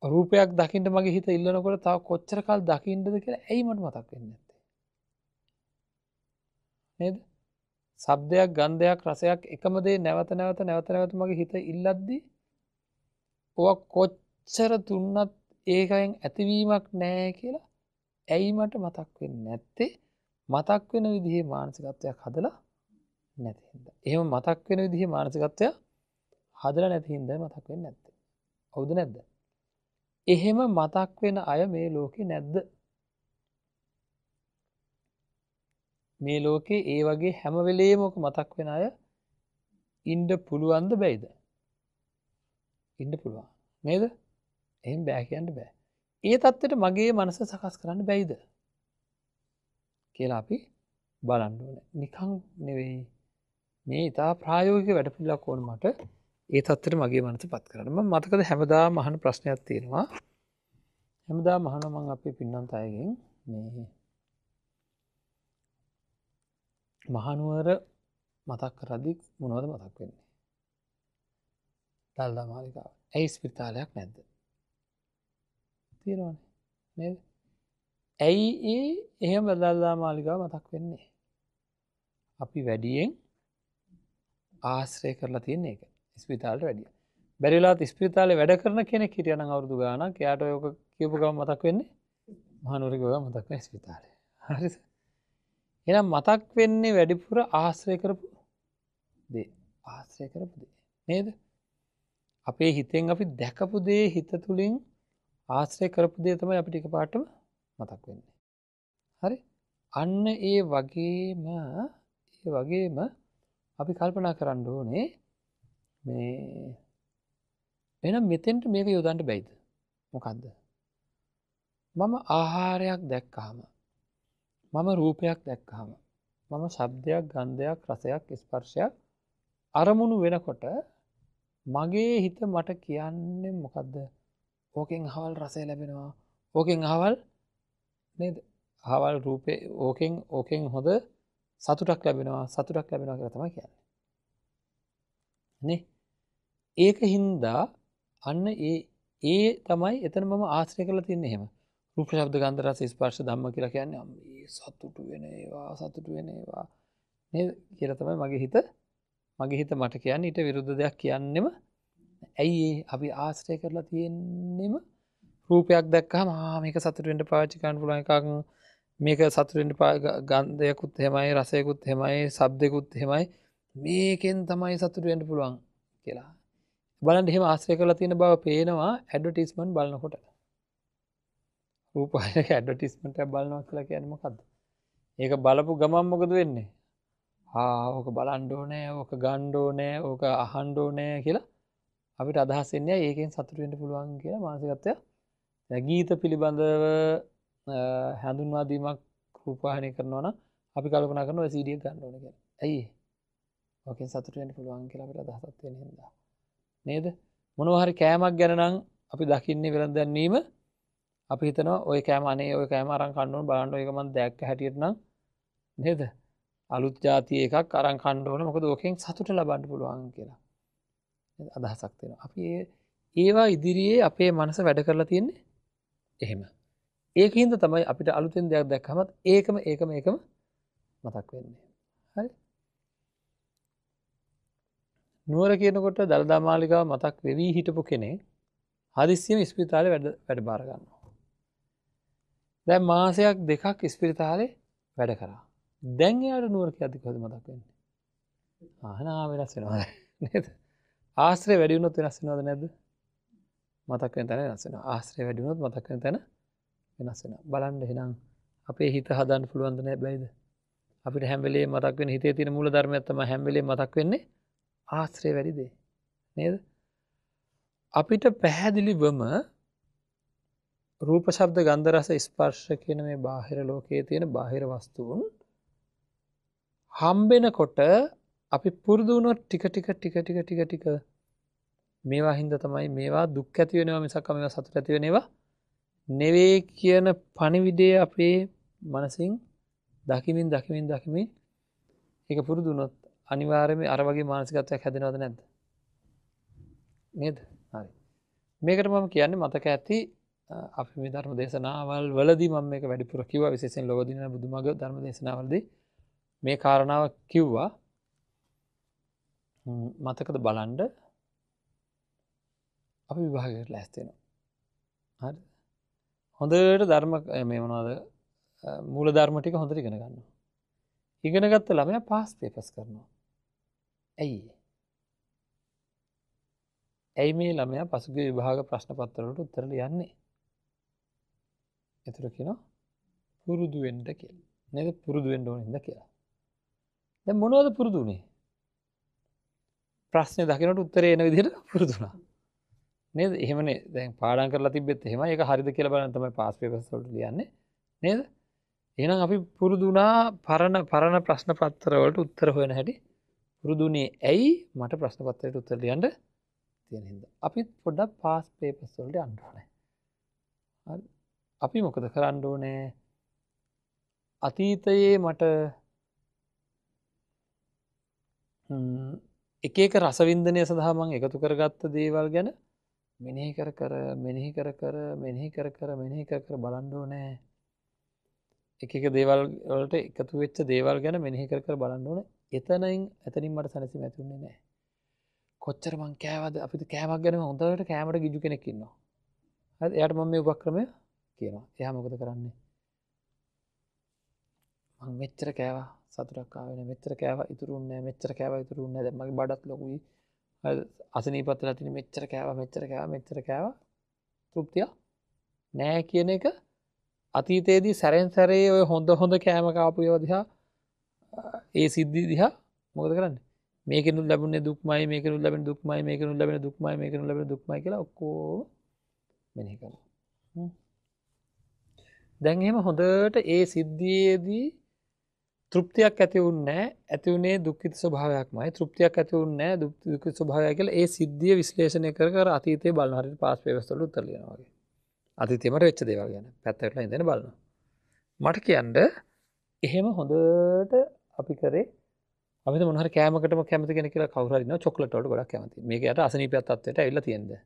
රූපයක් දකින්න මගේ හිත ඉල්ලනකොට තව කොච්චර කල් දකින්නද කියලා ඇයි මට මතක් වෙන්නේ නැත්තේ? නේද? ශබ්දයක්, ගන්ධයක්, රසයක් එකම දේ නැවත නැවත නැවත නැවත මගේ හිත ඉල්ලද්දි ඔවා කොච්චර දුන්නත් ඒකෙන් ඇතිවීමක් නැහැ කියලා ඇයි මට මතක් වෙන්නේ නැත්තේ? මතක් වෙන විදිහේ මානසිකත්වයක් හදලා නැති හින්දා. එහෙම මතක් වෙන විදිහේ මානසිකත්වයක් හදලා නැති හින්දා මතක් වෙන්නේ නැත්තේ. හවුද නැද්ද? එහෙම මතක් වෙන අය මේ ලෝකේ නැද්ද? මේ ලෝකේ ඒ වගේ හැම වෙලේම ඔක මතක් වෙන අය ඉන්න පුළුවන්ද බැයිද? ඉන්න පුළුවන්. නේද? එහෙම බෑ කියන්න බෑ. ඒ තත්ත්වයට මගේ මනස සකස් කරන්න බැයිද කියලා අපි බලන්න ඕනේ. නිකන් නෙවෙයි. මේ ඉතා ප්‍රායෝගික වැඩපිළිවෙලක් ඕන මට ඒ තත්ත්වයට මගේ මනස පත් කරන්න. මම මතකද හැමදාම අහන ප්‍රශ්නයක් තියෙනවා. හැමදාම අහනවා මම අපේ පින්නන්ත අයගෙන් මේ මහනුවර මතක් කරද්දි මොනවද මතක් වෙන්නේ? දළදා මාලිගාව. ඇයි ස්පිරිතාලයක් නැද්ද? තියෙනවනේ නේද? ඇයි ඒ එහෙම දළදා මාලිගාව මතක් වෙන්නේ? අපි වැඩියෙන් ආශ්‍රය කරලා තියෙන එක. ස්පිරිතාලට වැඩිය. බැරි වෙලාවත් ස්පිරිතාලේ වැඩ කරන කෙනෙක් හිටියා නම් අවුරුදු ගාණක් එයාට ඔය ඔක කියපු ගමන් මතක් වෙන්නේ මහනුවර ගියා මතක් වෙන ස්පිරිතාලේ. හරිද? එහෙනම් මතක් වෙන්නේ වැඩිපුර ආශ්‍රය කරපු දේ. ආශ්‍රය කරපු දේ. නේද? අපේ හිතෙන් අපි දැකපු දේ හිත තුලින් ආශ්‍රය කරපු දේ තමයි අපිට එකපාරටම මතක් වෙන්නේ. හරි? අන්න ඒ වගේම අපි කල්පනා කරන්න ඕනේ මේ එහෙනම් මෙතෙන්ට මේක යොදන්න බැයිද? මොකද්ද? මම ආහාරයක් දැක්කහම, මම රූපයක් දැක්කහම, මම ශබ්දයක්, ගන්ධයක්, රසයක්, ස්පර්ශයක් අරමුණු වෙනකොට මගේ හිත මට කියන්නේ මොකද්ද? ඕකෙන් අහවල් රසය ලැබෙනවා. ඕකෙන් අහවල් නේද? අහවල් රූපේ ඕකෙන් හොඳ සතුටක් ලැබෙනවා, සතුටක් ලැබෙනවා කියලා තමයි කියන්නේ. නේ? ඒක හින්දා අන්න ඒ තමයි එතන මම ආශ්‍රය කරලා තියන්නේ එහෙම. රූප, ශබ්ද, ගන්ධ, රස, ස්පර්ශ ධම්ම කියලා කියන්නේ මේ සතුටු වෙන ඒවා, සතුටු වෙන ඒවා නේද කියලා තමයි මගේ හිත මට කියන්නේ. ඊට විරුද්ධ දෙයක් කියන්නෙම ඇයි ඒ අපි ආශ්‍රය කරලා තියෙන්නෙම රූපයක් දැක්කහම ආ මේක සතුටු වෙන්න පාවිච්චි කරන්න පුළුවන් එකක්, මේක සතුටු වෙන්න ගන්ධයකුත් එහෙමයි, රසයකුත් එහෙමයි, ශබ්දයකුත් එහෙමයි, මේකෙන් තමයි සතුටු වෙන්න පුළුවන් කියලා. බලන්න එහෙම ආශ්‍රය කරලා තියෙන බව පේනවා ඇඩ්වර්ටයිස්මන්ට් බලනකොට. රූපවාහිනියක ඇඩ්වර්ටයිස්මන්ට් එකක් බලනවා කියලා කියන්නේ මොකද්ද? ඒක බලපු ගමන් මොකද වෙන්නේ? ආ ඕක බලන්න ඕනේ, ඕක ගන්න ඕනේ, ඕක අහන්න ඕනේ කියලා අපිට අදහස් එන්නේ ඒකෙන් සතුටු වෙන්න පුළුවන් කියලා මානසිකත්වය. දැන් ගීත පිළිබඳව හඳුන්වා දීමක් රූපවාහිනිය කරනවා නම් අපි කල්පනා කරනවා ඔය CD එක ගන්න ඕනේ කියලා. ඇයි ඒ? ඕකෙන් සතුටු වෙන්න පුළුවන් කියලා අපිට අදහසක් තියෙන හින්දා. නේද? මොනවා හරි කෑමක් ගැන නම් අපි දකින්නේ වෙළඳ දැන්වීම අපි හිතනවා ඔය කෑම අනේ ඔය කෑම අරන් කන්න ඕන බලන්න ඔය එක මං දැක්ක හැටියට නම් නේද? අලුත් ජාතිය එකක් අරන් කන්න ඕන මොකද ඕකෙන් සතුට ලබන්න පුළුවන් කියලා අදහසක් තියෙනවා. අපි ඒවා ඉදිරියේ අපේ මනස වැඩ කරලා තියෙන්නේ එහෙම. ඒකින්ද තමයි අපිට අලුතෙන් දෙයක් දැක්කමත් ඒකම ඒකම ඒකම මතක් වෙන්නේ. හරි? නුවර කියනකොට දළදා මාලිගාව මතක් වෙවි හිටපු කෙනෙක් හදිස්සියෙම ඉස්පිරිතාලේ වැඩ බාර ගන්නවා. දැන් මාසයක් දෙකක් ඉස්පිරිතාලේ වැඩ කරා. දැන් එයාට නුවර කියද්දි කොහොමද මතක් වෙන්නේ? ආහනා වෙනස් වෙනවා. නේද? ආශ්‍රය වැඩි වුණොත් වෙනස් වෙනවද නැද්ද? මතක් වෙන තැන වෙනස් වෙනවා. ආශ්‍රය වැඩි වුණොත් මතක් වෙන තැන වෙනස් වෙනවා. බලන්න එහෙනම් අපේ හිත හදන්න පුළුවන්ද නෑ බැයිද? අපිට හැම වෙලේම මතක් වෙන හිතේ තියෙන මූල ධර්මයක් තමයි හැම වෙලේම මතක් වෙන්නේ ආශ්‍රය වැඩි දේ. නේද? අපිට පැහැදිලිවම රූප ශබ්ද ගන්ධ රස ස්පර්ශ කියන මේ බාහිර ලෝකයේ තියෙන බාහිර වස්තුන් හම්බෙනකොට අපි පුරුදු වුණොත් ටික ටික ටික ටික ටික ටික මේවා හින්දා තමයි මේවා දුක් ඇති වෙනවා මිසක් මේවා සතුට ඇති වෙන ඒවා නෙවෙයි කියන පණිවිඩය අපේ මනසින් දකිමින් දකිමින් දකිමින් ඒක පුරුදු වුණොත් අනිවාර්යයෙන්ම අර වගේ මානසිකත්වයක් හැදෙනවද නැද්ද? නේද? හරි. මේකට මම කියන්නේ මතක ඇති අපි මේ ධර්ම දේශනාවල් වලදී මම මේක වැඩිපුර කිව්වා, විශේෂයෙන් ලෝදින බුදුමග ධර්ම දේශනාවලදී මේ කාරණාව කිව්වා. මතකද බලන්න අපි විභාගයකට ලෑස්ති වෙනවා. හරිද? හොඳට ධර්ම මේ මොනවද මූල ධර්ම ටික හොඳට ඉගෙන ගන්නවා. ඉගෙන ගත්ත ළමයා පාස් පේපර්ස් කරනවා. ඇයි? ඇයි මේ ළමයා පසුගිය විභාග ප්‍රශ්න පත්‍ර වලට උත්තර ලියන්නේ? ඒතර කියනවා පුරුදු වෙන්න කියලා. නේද? පුරුදු වෙන්න ඕන හින්දා කියලා. දැන් මොනවද පුරුදු වුනේ? ප්‍රශ්නේ දකිනකොට උත්තරේ එන විදිහට පුරුදු වුණා. නේද? එහෙමනේ. දැන් පාඩම් කරලා තිබ්බෙත් එහෙමයි. ඒක හරිද කියලා බලන්න තමයි පාස් පේපර්ස් වලට ලියන්නේ. නේද? එහෙනම් අපි පුරුදු වුණා පරණ පරණ ප්‍රශ්න පත්‍ර වලට උත්තර හොයන හැටි පුරුදු වුණේ ඇයි? මට ප්‍රශ්න පත්‍රයට උත්තර ලියන්න තියෙන හින්දා. අපිත් පොඩ්ඩක් පාස් පේපර්ස් වලට යන්න ඕනේ. හරි. අපි මොකද කරන්න ඕනේ? අතීතයේ මට එක එක රසවින්දනය සඳහා මං එකතු කරගත්ත දේවල් ගැන මෙනෙහි කර කර මෙනෙහි කර කර මෙනෙහි කර කර මෙනෙහි කර කර බලන්න ඕනේ. එක එක දේවල් වලට එකතු වෙච්ච දේවල් ගැන මෙනෙහි කර කර බලන්න ඕනේ. එතනින් මට සැනසීම ඇති වෙන්නේ නැහැ. කොච්චර මං කෑවද? අපිට කෑමක් ගැන හොඳට කෑමට ගිජු කෙනෙක් ඉන්නවා. හරිද? එයාට මම මේ උපක්‍රමය කියනවා. එයා මොකද කරන්නේ? මං මෙච්චර කෑවා සතුටක් ආවේ නෑ, මෙච්චර කෑවා ඉතුරු වුණේ නෑ, මෙච්චර කෑවා ඉතුරු වුණේ නෑ, දැන් මගේ බඩත් ලොකුයි. හරිද? අසනීපත් වෙලා තියෙන මෙච්චර කෑවා මෙච්චර කෑවා මෙච්චර කෑවා තෘප්තිය නෑ කියන එක අතීතයේදී සැරෙන් සැරේ ඔය හොඳ හොඳ කෑම කාපු ඒවා දිහා ඒ සිද්ධි දිහා මොකද කරන්නේ? මේකෙනුත් ලැබුණේ දුක්මයි, මේකෙනුත් ලැබෙන දුක්මයි, මේකෙනුත් ලැබෙන දුක්මයි, මේකෙනුත් ලැබෙන දුක්මයි කියලා ඔක්කොම මෙනෙහි කරනවා. දැන් එහෙම හොඳට ඒ සිද්ධියේදී තෘප්තියක් ඇති වුන්නේ නැහැ, ඇති වුණේ දුක්ඛිත ස්වභාවයක්මයි. තෘප්තියක් ඇති වුන්නේ නැහැ, දුක්ඛිත ස්වභාවය කියලා ඒ සිද්ධිය විශ්ලේෂණය කර කර අතීතේ බලන හරියට පාස් පේපර්ස් වල උත්තර ලියනවා වගේ. අතීතේ මට වෙච්ච දේවල් ගැන පැත්තකට ඉඳගෙන බලනවා. මට කියන්න එහෙම හොඳට අපි කරේ අපිට මොන හරි කෑමකටම කැමති කෙනෙක් කියලා කවුරු හරි ඉන්නවා චොක්ලට් වලට ගොඩක් කැමති. මේක යට අසනීපයක් තත්ත්වයට ඇවිල්ලා තියෙනවා.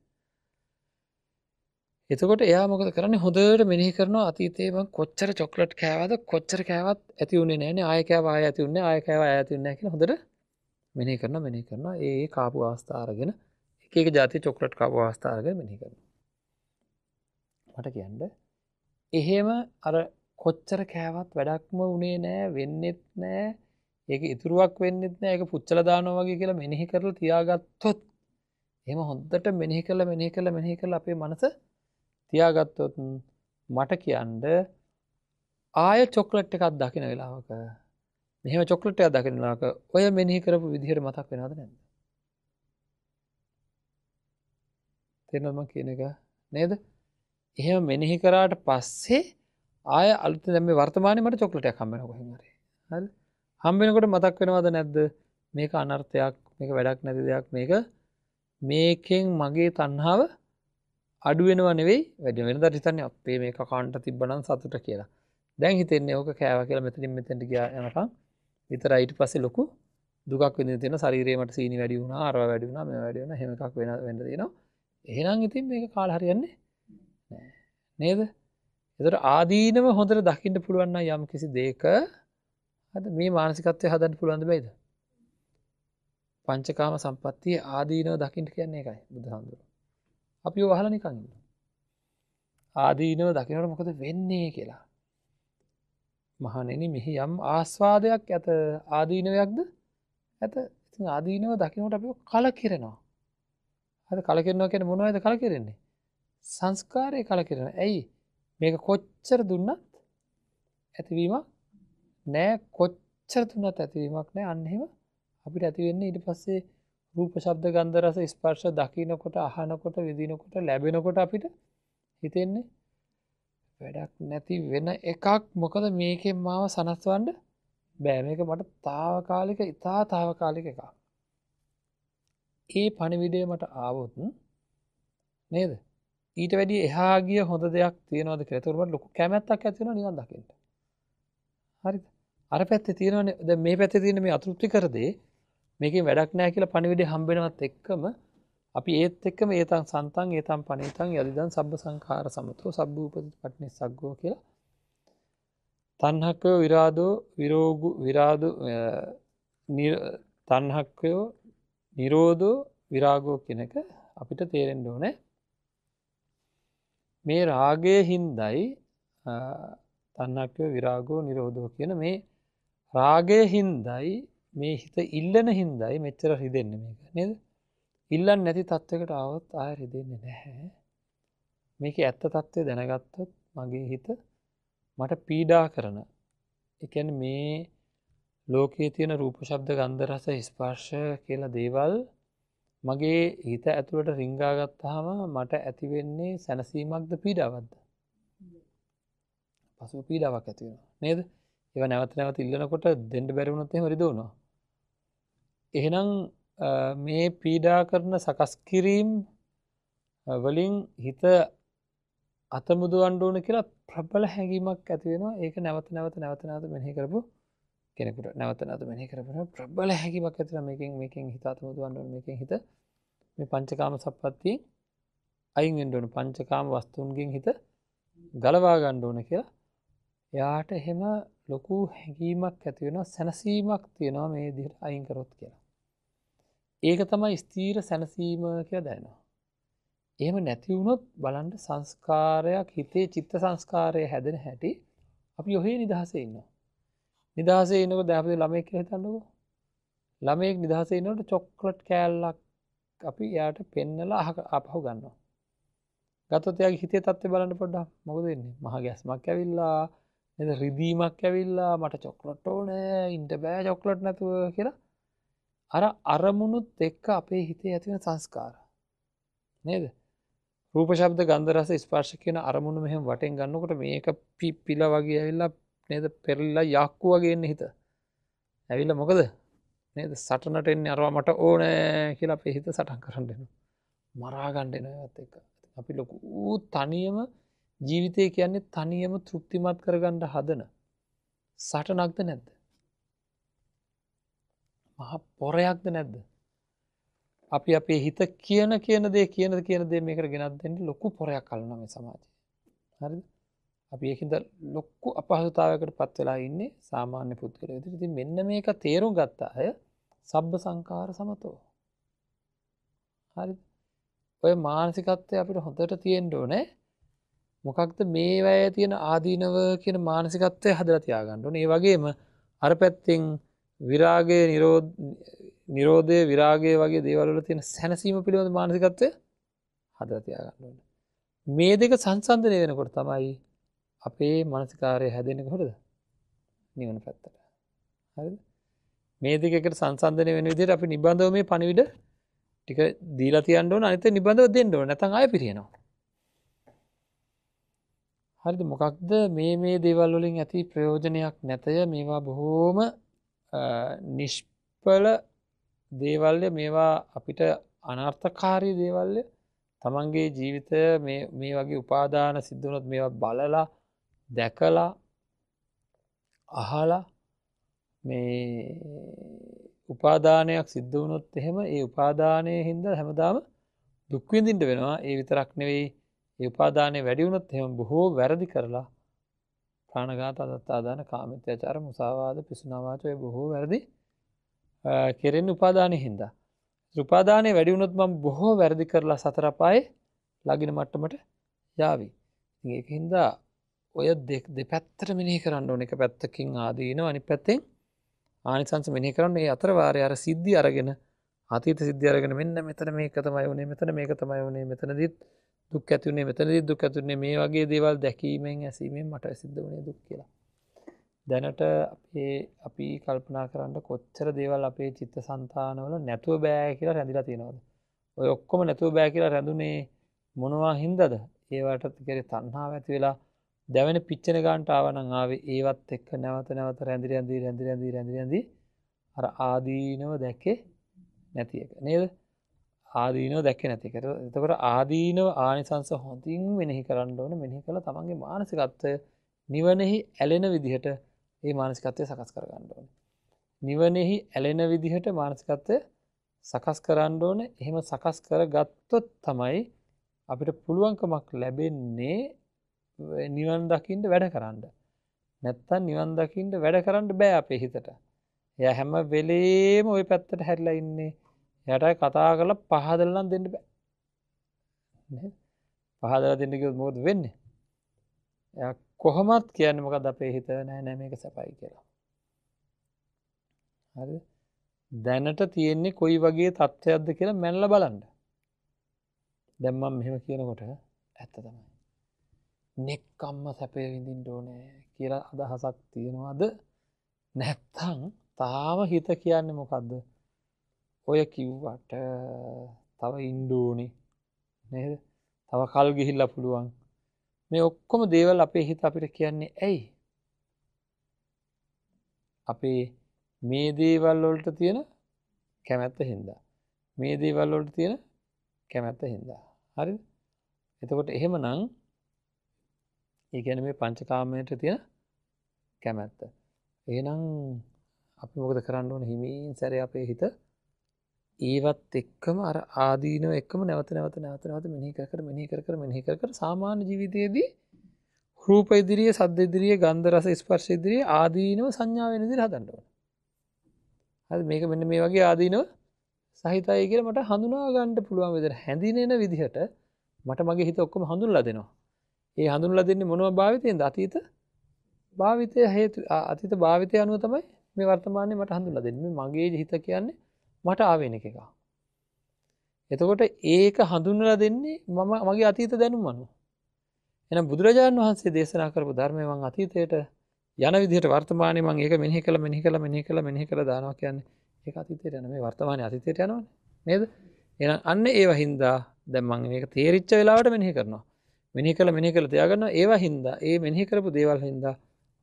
එතකොට එයා මොකද කරන්නේ? හොඳට මෙනෙහි කරනවා අතීතේ මං කොච්චර චොක්ලට් කෑවද, කොච්චර කෑවත් ඇති වුණේ නෑනේ, ආයෙ කෑවා ආයෙ ඇති වුණේ නෑ, ආයෙ කෑවා ආයෙ ඇති වුණේ නෑ කියලා හොඳට මෙනෙහි කරනවා මෙනෙහි කරනවා. ඒ ඒ කාපු අවස්ථා අරගෙන එක එක ජාතිය චොක්ලට් කාපු අවස්ථා අරගෙන මෙනෙහි කරනවා. මට කියන්න එහෙම අර කොච්චර කෑවත් වැඩක්ම වුණේ නෑ, වෙන්නෙත් නෑ, ඒක ඉතුරුවක් වෙන්නෙත් නෑ, ඒක පුච්චලා දානවා වගේ කියලා මෙනෙහි කරලා තියාගත්තොත්, එහෙම හොඳට මෙනෙහි කරලා මෙනෙහි කරලා මෙනෙහි කරලා අපේ මනස තියාගත්තොත් මට කියන්න ආය චොක්ලට් එකක් දකින වෙලාවක, මෙහෙම චොක්ලට් එකක් දකින වෙලාවක ඔය මෙනෙහි කරපු විදිහට මතක් වෙනවද නැද්ද? තේරෙනවද මං කියන එක? නේද? එහෙම මෙනෙහි කරාට පස්සේ ආය අලුත් දැන් මේ වර්තමානයේ මට චොක්ලට් එකක් හම්බ වෙනවා කොහෙන් හරි. හරිද? හම්බ වෙනකොට මතක් වෙනවද නැද්ද? මේක අනර්ථයක්, මේක වැඩක් නැති දෙයක්, මේක මේකෙන් මගේ තණ්හාව අඩු වෙනව නෙවෙයි වැඩි වෙනවා. වෙනදාට හිතන්නේ අපේ මේක කන්ට තිබ්බනම් සතුට කියලා. දැන් හිතෙන්නේ ඕක කෑවා කියලා මෙතනින් මෙතෙන්ට ගියා යනකම් විතරයි. ඊට පස්සේ ලොකු දුකක් විඳින්න තියෙනවා. ශරීරේ මට සීනි වැඩි වුණා, අරවා වැඩි වුණා, මේවා වැඩි වුණා, එහෙම එකක් වෙන්න තියෙනවා. එහෙනම් ඉතින් මේක කාලා හරියන්නේ නෑ. නේද? ඒතර ආදීනව හොඳට දකින්න පුළුවන් නම් යම් කිසි දෙයක හරිද මේ මානසිකත්වය හදන්න පුළුවන්ද බැයිද? පංචකාම සම්පත්තිය ආදීනව දකින්න කියන්නේ ඒකයි බුදුහාමුදුරුවෝ. අපි ඔය වහලා නිකන් ඉන්නවා. ආදීනව දකින්නකොට මොකද වෙන්නේ කියලා. මහණෙනි මෙහි යම් ආස්වාදයක් ඇත, ආදීනවයක්ද ඇත. ඉතින් ආදීනව දකින්නකොට අපි කලකිරෙනවා. හරි, කලකිරෙනවා කියන්නේ මොනවද කලකිරෙන්නේ? සංස්කාරය කලකිරෙනවා. ඇයි? මේක කොච්චර දුන්නත් ඇතිවීමක් නෑ, කොච්චර දුන්නත් ඇතිවීමක් නෑ. අන්න එහෙම අපිට ඇති වෙන්නේ ඊට පස්සේ රූප, ශබ්ද, ගන්ධ, රස, ස්පර්ශ දකින්නකොට, අහනකොට, විඳිනකොට, ලැබෙනකොට අපිට හිතෙන්නේ වැඩක් නැති වෙන එකක්. මොකද මේකෙන් මාව සනස්වන්න බෑ. මේක මට తాවකාලික, ඉතා తాවකාලික එකක්. ඒ පණිවිඩය මට ආවොත් නේද, ඊට වැඩිය එහා ගිය හොඳ දෙයක් තියෙනවද කියලා. ඒතකොට මට ලොකු කැමැත්තක් ඇති වෙනවා නිවන් දකින්න. හරිද? අර පැත්තේ තියෙනවනේ, දැන් මේ පැත්තේ තියෙන මේ අතෘප්තිකර දේ මේකෙන් වැඩක් නෑ කියලා පණිවිඩය හම්බ වෙනවත් එක්කම අපි ඒත් එක්කම ඒතං සන්තං ඒතං පණිතං යදිදං සබ්බ සංඛාර සමතෝ සබ්බ උපදි පටිනිස්සග්ගෝ කියලා තණ්හක්කයෝ විරාදෝ විරෝගු විරාදෝ තණ්හක්කයෝ නිරෝධෝ විරාගෝ කියන එක අපිට තේරෙන්න ඕනේ. මේ රාගයේ හින්දයි තණ්හක්කයෝ විරාගෝ නිරෝධෝ කියන මේ රාගයේ හින්දයි මේ හිත ඉල්ලන හින්දයි මෙච්චර රිදෙන්නේ මේක නේද? ඉල්ලන්නේ නැති තත්වයකට ආවොත් ආයෙ රිදෙන්නේ නැහැ. මේකේ ඇත්ත තත්ත්වය දැනගත්තොත් මගේ හිත මට පීඩා කරන, ඒ කියන්නේ මේ ලෝකයේ තියෙන රූප, ශබ්ද, ගන්ධ, රස, ස්පර්ශ කියලා දේවල් මගේ හිත ඇතුළට රිංගා ගත්තාම මට ඇති වෙන්නේ සැනසීමක්ද පීඩාවක්ද? පසුව පීඩාවක් ඇති වෙනවා නේද? ඒවා නැවත නැවත ඉල්ලනකොට දෙන්න බැරි වුණොත් එහෙම රිදවනවා. එහෙනම් මේ පීඩා කරන සකස් කිරීම් වලින් හිත අතමුදවන්න ඕන කියලා ප්‍රබල හැඟීමක් ඇති වෙනවා. ඒක නැවත නැවත නැවත නැවත මෙනෙහි කරපු කෙනෙකුට නැවත නැවත මෙනෙහි කරපු ප්‍රබල හැඟීමක් ඇති වෙනවා. මේකෙන් හිත අතමුදවන්න ඕන, මේකෙන් හිත මේ පංචකාම සම්පත්තියෙන් අයින් වෙන්න ඕන, පංචකාම වස්තුන්ගෙන් හිත ගලවා ගන්න ඕන කියලා එයාට එහෙම ලොකු හැඟීමක් ඇති වෙනවා, සැනසීමක් තියෙනවා මේ විදිහට අයින් කරොත් කියලා. ඒක තමයි ස්ථීර සැනසීම කියලා දැනෙනවා. එහෙම නැති වුණොත් බලන්න සංස්කාරයක් හිතේ චිත්ත සංස්කාරය හැදෙන හැටි අපි ඔහේ නිදහසේ ඉන්නවා. නිදහසේ ඉන්නකොට දැන් අපි ළමයෙක් කියලා හිතන්නකෝ. ළමයෙක් නිදහසේ ඉන්නකොට චොක්ලට් කෑල්ලක් අපි එයාට පෙන්නලා ආපහු ගන්නවා. ගත්තොත් එයාගේ හිතේ තත්ත්වය බලන්න පොඩ්ඩක්. මොකද වෙන්නේ? මහ ගැස්මක් ඇවිල්ලා නේද, රිදීමක් ඇවිල්ලා මට චොක්ලට් ඕනේ, ඉන්න බෑ චොක්ලට් නැතුව කියලා අර අරමුණුත් එක්ක අපේ හිතේ ඇති වෙන සංස්කාර නේද? රූප, ශබ්ද, ගන්ධ, රස, ස්පර්ශ කියන අරමුණු මෙහෙම වටෙන් ගන්නකොට මේක පිපිලා වගේ ඇවිල්ලා නේද, පෙරලිලා යක්කු වගේ එන්නේ හිත. ඇවිල්ලා මොකද නේද, සටනට එන්නේ අරවා මට ඕනේ කියලා අපේ හිත සටන් කරන්න එනවා. මරා ගන්න එනවා ඒවත් එක්ක. අපි ලොකු තනියම ජීවිතය කියන්නේ තනියම තෘප්තිමත් කරගන්න හදන සටනක්ද නැද්ද? මහා පොරයක්ද නැද්ද? අපි අපේ හිත කියන කියන දේ කියන කියන දේ මේකට ගෙනත් දෙන්න ලොකු පොරයක් අල්ලනවා මේ සමාජය. හරිද? අපි ඒකින්ද ලොකු අපහසුතාවයකට පත් වෙලා ඉන්නේ සාමාන්‍ය පුද්ගලයෝ විදිහට. ඉතින් මෙන්න මේක තේරුම් ගත්ත අය සබ්බ සංඛාර සමතෝ. හරිද? ඔය මානසිකත්වය අපිට හොඳට තියෙන්න ඕනේ. මොකක්ද මේ වැය තියෙන ආදීනව කියන මානසිකත්වය හදලා තියාගන්න ඕනේ. ඒ වගේම අර පැත්තෙන් විරාගය, නිරෝධය, විරාගය වගේ දේවල් වල තියෙන සැනසීම පිළිබඳ මානසිකත්වය හදලා තියාගන්න ඕනේ. මේ දෙක සංසන්දනය වෙනකොට තමයි අපේ මානසිකාරය හැදෙන්නේ කොහොමද? නිවන පැත්තට. හරිද? මේ දෙක එකට සංසන්දනය වෙන විදිහට අපි නිබඳව මේ පණිවිඩ ටික දීලා තියන්න ඕන. අනිත් එක නිබඳව දෙන්න ඕන. නැත්නම් ආයෙ පිරිනව. හරිද? මොකක්ද මේ මේ දේවල් වලින් ඇති ප්‍රයෝජනයක් නැතය. මේවා බොහෝම නිෂ්ඵල දේවල්ය. මේවා අපිට අනර්ථකාරී දේවල්ය. තමන්ගේ ජීවිතය මේ වගේ උපාදාන සිද්ධ වුණොත් මේවා බලලා දැකලා අහලා මේ උපාදානයක් සිද්ධ වුණොත් එහෙම ඒ උපාදානයේ හින්දා හැමදාම දුක් විඳින්න වෙනවා. ඒ විතරක් නෙවෙයි, ඒ උපාදානය වැඩි වුණොත් එහෙම බොහෝ වැරදි කරලා ප්‍රාණඝාත, අදත්තාදාන, කාමමිත්‍යාචාර, මුසාවාද, පිසුනා වාච ඔය බොහෝ වැරදි කෙරෙන්නේ උපාදානයේ හින්දා. උපාදානය වැඩි වුණොත් මම බොහෝ වැරදි කරලා සතර අපායේ ළඟින මට්ටමට යාවි. ඉතින් ඒක හින්දා ඔය දෙපැත්තට මෙනෙහි කරන්න ඕන. එක පැත්තකින් ආදීනව, අනිත් පැත්තෙන් ආනිසංස මෙනෙහි කරන්න. ඒ අතර වාරේ අර සිද්ධි අරගෙන අතීත සිද්ධි අරගෙන මෙන්න මෙතන මේක තමයි වුනේ, මෙතන මේක තමයි වුනේ, මෙතනදිත් දුක් ඇති වුනේ, මෙතනදිත් දුක් ඇති වුනේ, මේ වගේ දේවල් දැකීමෙන් ඇසීමෙන් මට සිද්ධ වුනේ දුක් කියලා. දැනට අපි කල්පනා කරන්න කොච්චර දේවල් අපේ චිත්තසංතානවල නැතුව බෑ කියලා රැඳිලා තියෙනවද? ඔය ඔක්කොම නැතුව බෑ කියලා රැඳුනේ මොනවා හින්දාද? ඒවට කෙරේ තණ්හාව ඇති වෙලා දැවෙන පිච්චෙන ගන්නට ආවා නම් ආවේ ඒවත් එක්ක නැවත නැවත රැඳි රැඳි රැඳි රැඳි රැඳි රැඳි අර ආදීනව දැකේ නැති එක නේද? ආදීනව දැකේ නැති එක. එතකොට ආදීනව ආනිසංස හොඳින් මෙනෙහි කරන්න ඕනේ. මෙනෙහි කළා තමන්ගේ මානසිකත්වය නිවනෙහි ඇලෙන විදිහට ඒ මානසිකත්වය සකස් කරගන්න ඕනේ. නිවනෙහි ඇලෙන විදිහට මානසිකත්වය සකස් කරන්න ඕනේ. එහෙම සකස් කරගත්තොත් තමයි අපිට පුළුවන්කමක් ලැබෙන්නේ නිවන් දකින්න වැඩ කරන්න. නැත්තම් නිවන් දකින්න වැඩ කරන්න බෑ අපේ හිතට. එයා හැම වෙලේම ওই පැත්තට හැරිලා ඉන්නේ. එයාට අය කතා කරලා පහදලා නම් දෙන්න බෑ. නේද? පහදලා දෙන්න කිව්වොත් මොකද වෙන්නේ? එයා කොහොමත් කියන්නේ මොකද්ද අපේ හිත නෑ නෑ මේක සැපයි කියලා. හරිද? දැනට තියෙන්නේ කොයි වගේ තත්ත්වයක්ද කියලා මැනලා බලන්න. දැන් මම මෙහෙම කියනකොට ඇත්ත තමයි. නෙක්කම්ම සැපය විඳින්න ඕනේ කියලා අදහසක් තියනවාද? නැත්තම් තාම හිත කියන්නේ මොකද්ද? ඔය කිව්වට තව ඉන්න ඕනේ නේද? තව කල් ගිහිල්ලා පුළුවන්. මේ ඔක්කොම දේවල් අපේ හිත අපිට කියන්නේ ඇයි? අපේ මේ දේවල් වලට තියෙන කැමැත්ත හින්දා. මේ දේවල් වලට තියෙන කැමැත්ත හින්දා. හරිද? එතකොට එහෙමනම් ඒ කියන්නේ මේ පංචකාමයට තියෙන කැමැත්ත. එහෙනම් අපි මොකද කරන්න ඕන? හිමින් සැරේ අපේ හිත ඒවත් එක්කම අර ආදීනව එක්කම නැවත නැවත නැවත නැවත මෙනෙහි කර කර මෙනෙහි කර කර මෙනෙහි කර කර සාමාන්‍ය ජීවිතයේදී රූප ඉදිරියේ, සද්ද ඉදිරියේ, ගන්ධ රස ස්පර්ශ ඉදිරියේ ආදීනව සංඥා වෙන විදිහට හදන්න ඕන. හරි, මේක මෙන්න මේ වගේ ආදීනව සහිතයි කියලා මට හඳුනා ගන්න පුළුවන් විදිහට හැඳිනෙන විදිහට මට මගේ හිත ඔක්කොම හඳුන්ලා දෙනවා. ඒ හඳුන්ලා දෙන්නේ මොනවා භාවිතයෙන්ද? අතීත භාවිතය හේතු අතීත භාවිතය අනුව තමයි මේ වර්තමානයේ මට හඳුන්ලා දෙන්නේ. මේ මගේ හිත කියන්නේ මට ආවේනික එකක්. එතකොට ඒක හඳුන්වලා දෙන්නේ මම මගේ අතීත දැනුම අනුව. එහෙනම් බුදුරජාණන් වහන්සේ දේශනා කරපු ධර්මය මං අතීතයට යන විදිහට වර්තමානයේ මං ඒක මෙනෙහි කළා මෙනෙහි කළා මෙනෙහි කළා මෙනෙහි කළා දානවා කියන්නේ ඒක අතීතයට යන මේ වර්තමානයේ අතීතයට යනවනේ නේද? එහෙනම් අන්න ඒව හින්දා දැන් මං මේක තේරිච්ච වෙලාවට මෙනෙහි කරනවා. මෙනෙහි කළා මෙනෙහි කළා තියාගන්නවා. ඒව හින්දා ඒ මෙනෙහි කරපු දේවල් හින්දා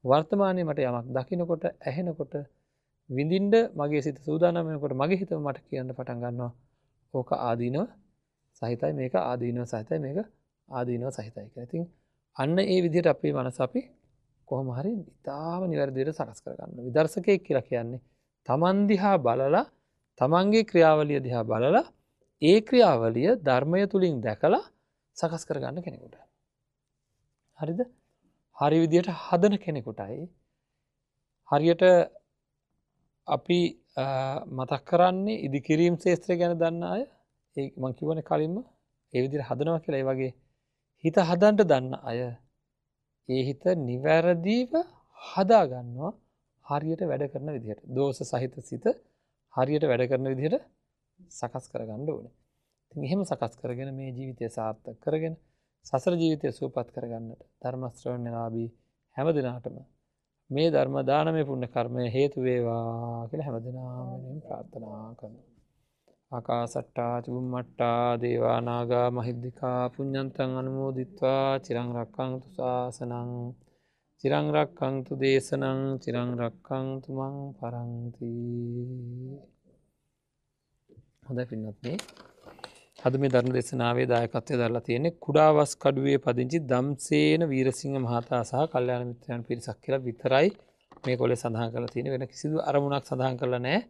වර්තමානයේ මට යමක් දකින්නකොට ඇහෙනකොට විඳින්න මගේ සිත සූදානම් වෙනකොට මගේ හිතම මට කියන්න පටන් ගන්නවා ඕක ආදීනව සහිතයි, මේක ආදීනව සහිතයි, මේක ආදීනව සහිතයි කියලා. ඉතින් අන්න ඒ විදිහට අපේ මනස අපි කොහොම හරි ඉතාම නිවැරදි විදිහට සකස් කරගන්නවා. විදර්ශකයෙක් කියලා කියන්නේ තමන් දිහා බලලා තමන්ගේ ක්‍රියාවලිය දිහා බලලා ඒ ක්‍රියාවලිය ධර්මය තුලින් දැකලා සකස් කරගන්න කෙනෙකුට. හරිද? හරි විදිහට හදන කෙනෙකුටයි හරියට අපි මතක් කරන්නේ ඉදිකිරීම් ශේත්‍රය ගැන දන්න අය, ඒ මං කියවනේ කලින්ම ඒ විදිහට හදනවා කියලා. ඒ වගේ හිත හදන්න දන්න අය ඒ හිත නිවැරදිව හදා ගන්නවා හරියට වැඩ කරන විදිහට. දෝෂ සහිත සිත හරියට වැඩ කරන විදිහට සකස් කරගන්න ඕනේ. ඉතින් එහෙම සකස් කරගෙන මේ ජීවිතය සාර්ථක කරගෙන සසර ජීවිතය සුවපත් කරගන්නට ධර්ම ශ්‍රවණලාභී හැම දිනාටම මේ ධර්ම දානමය පුණ්‍ය කර්මය හේතු වේවා කියලා හැම දිනාම වෙනුවෙන් ප්‍රාර්ථනා කරනවා. ආකාසට්ටා චුම්මට්ටා දේවා නාග මහිද්దికා පුඤ්ඤන්තං අනුමෝදිත්වා චිරං රක්ඛන්තු ශාසනං චිරං රක්ඛන්තු දේශනං චිරං රක්ඛන්තු මං පරන්ති. හොඳයි පින්වත්නි, අද මේ ධර්ම දේශනාවේ දායකත්වය දරලා තියෙන්නේ කුඩාවස් කඩුවේ පදිංචි දම්සේන වීරසිංහ මහතා සහ කල්යාණ මිත්‍රයන් පිරිසක් කියලා විතරයි මේ කොලේ සඳහන් කරලා තියෙන්නේ. වෙන කිසිදු අරමුණක් සඳහන් කරලා නැහැ.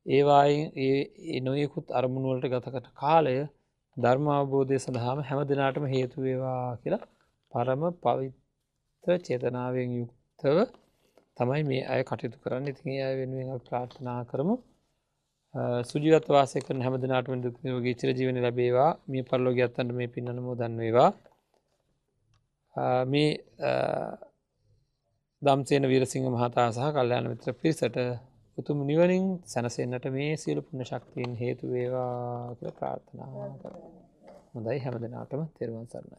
ඒ වායින් ඒ නොයෙකුත් අරමුණු වලට ගත කරන කාලය ධර්ම අවබෝධය සඳහාම හැම දිනාටම හේතු වේවා කියලා පරම පවිත්‍ර චේතනාවෙන් යුක්තව තමයි මේ අය කටයුතු කරන්නේ. ඉතින් ඒ අය වෙනුවෙන් අපි ප්‍රාර්ථනා කරමු. සුජීවත්ව වාසය කරන හැම දිනාටම දුක් නිරෝගී චිරජීවනය ලැබේවා. මිය පරලෝකියත් අන්ට මේ පින් අනුමෝදන් වේවා. මේ දම්සේන වීරසිංහ මහතා සහ කල්යාණ මිත්‍ර පිරිසට උතුම් නිවනින් සැනසෙන්නට මේ සියලු පුණ්‍ය ශක්තියින් හේතු වේවා කියලා ප්‍රාර්ථනා කරමු. හොඳයි, හැම දිනාටම තෙරුවන් සරණයි.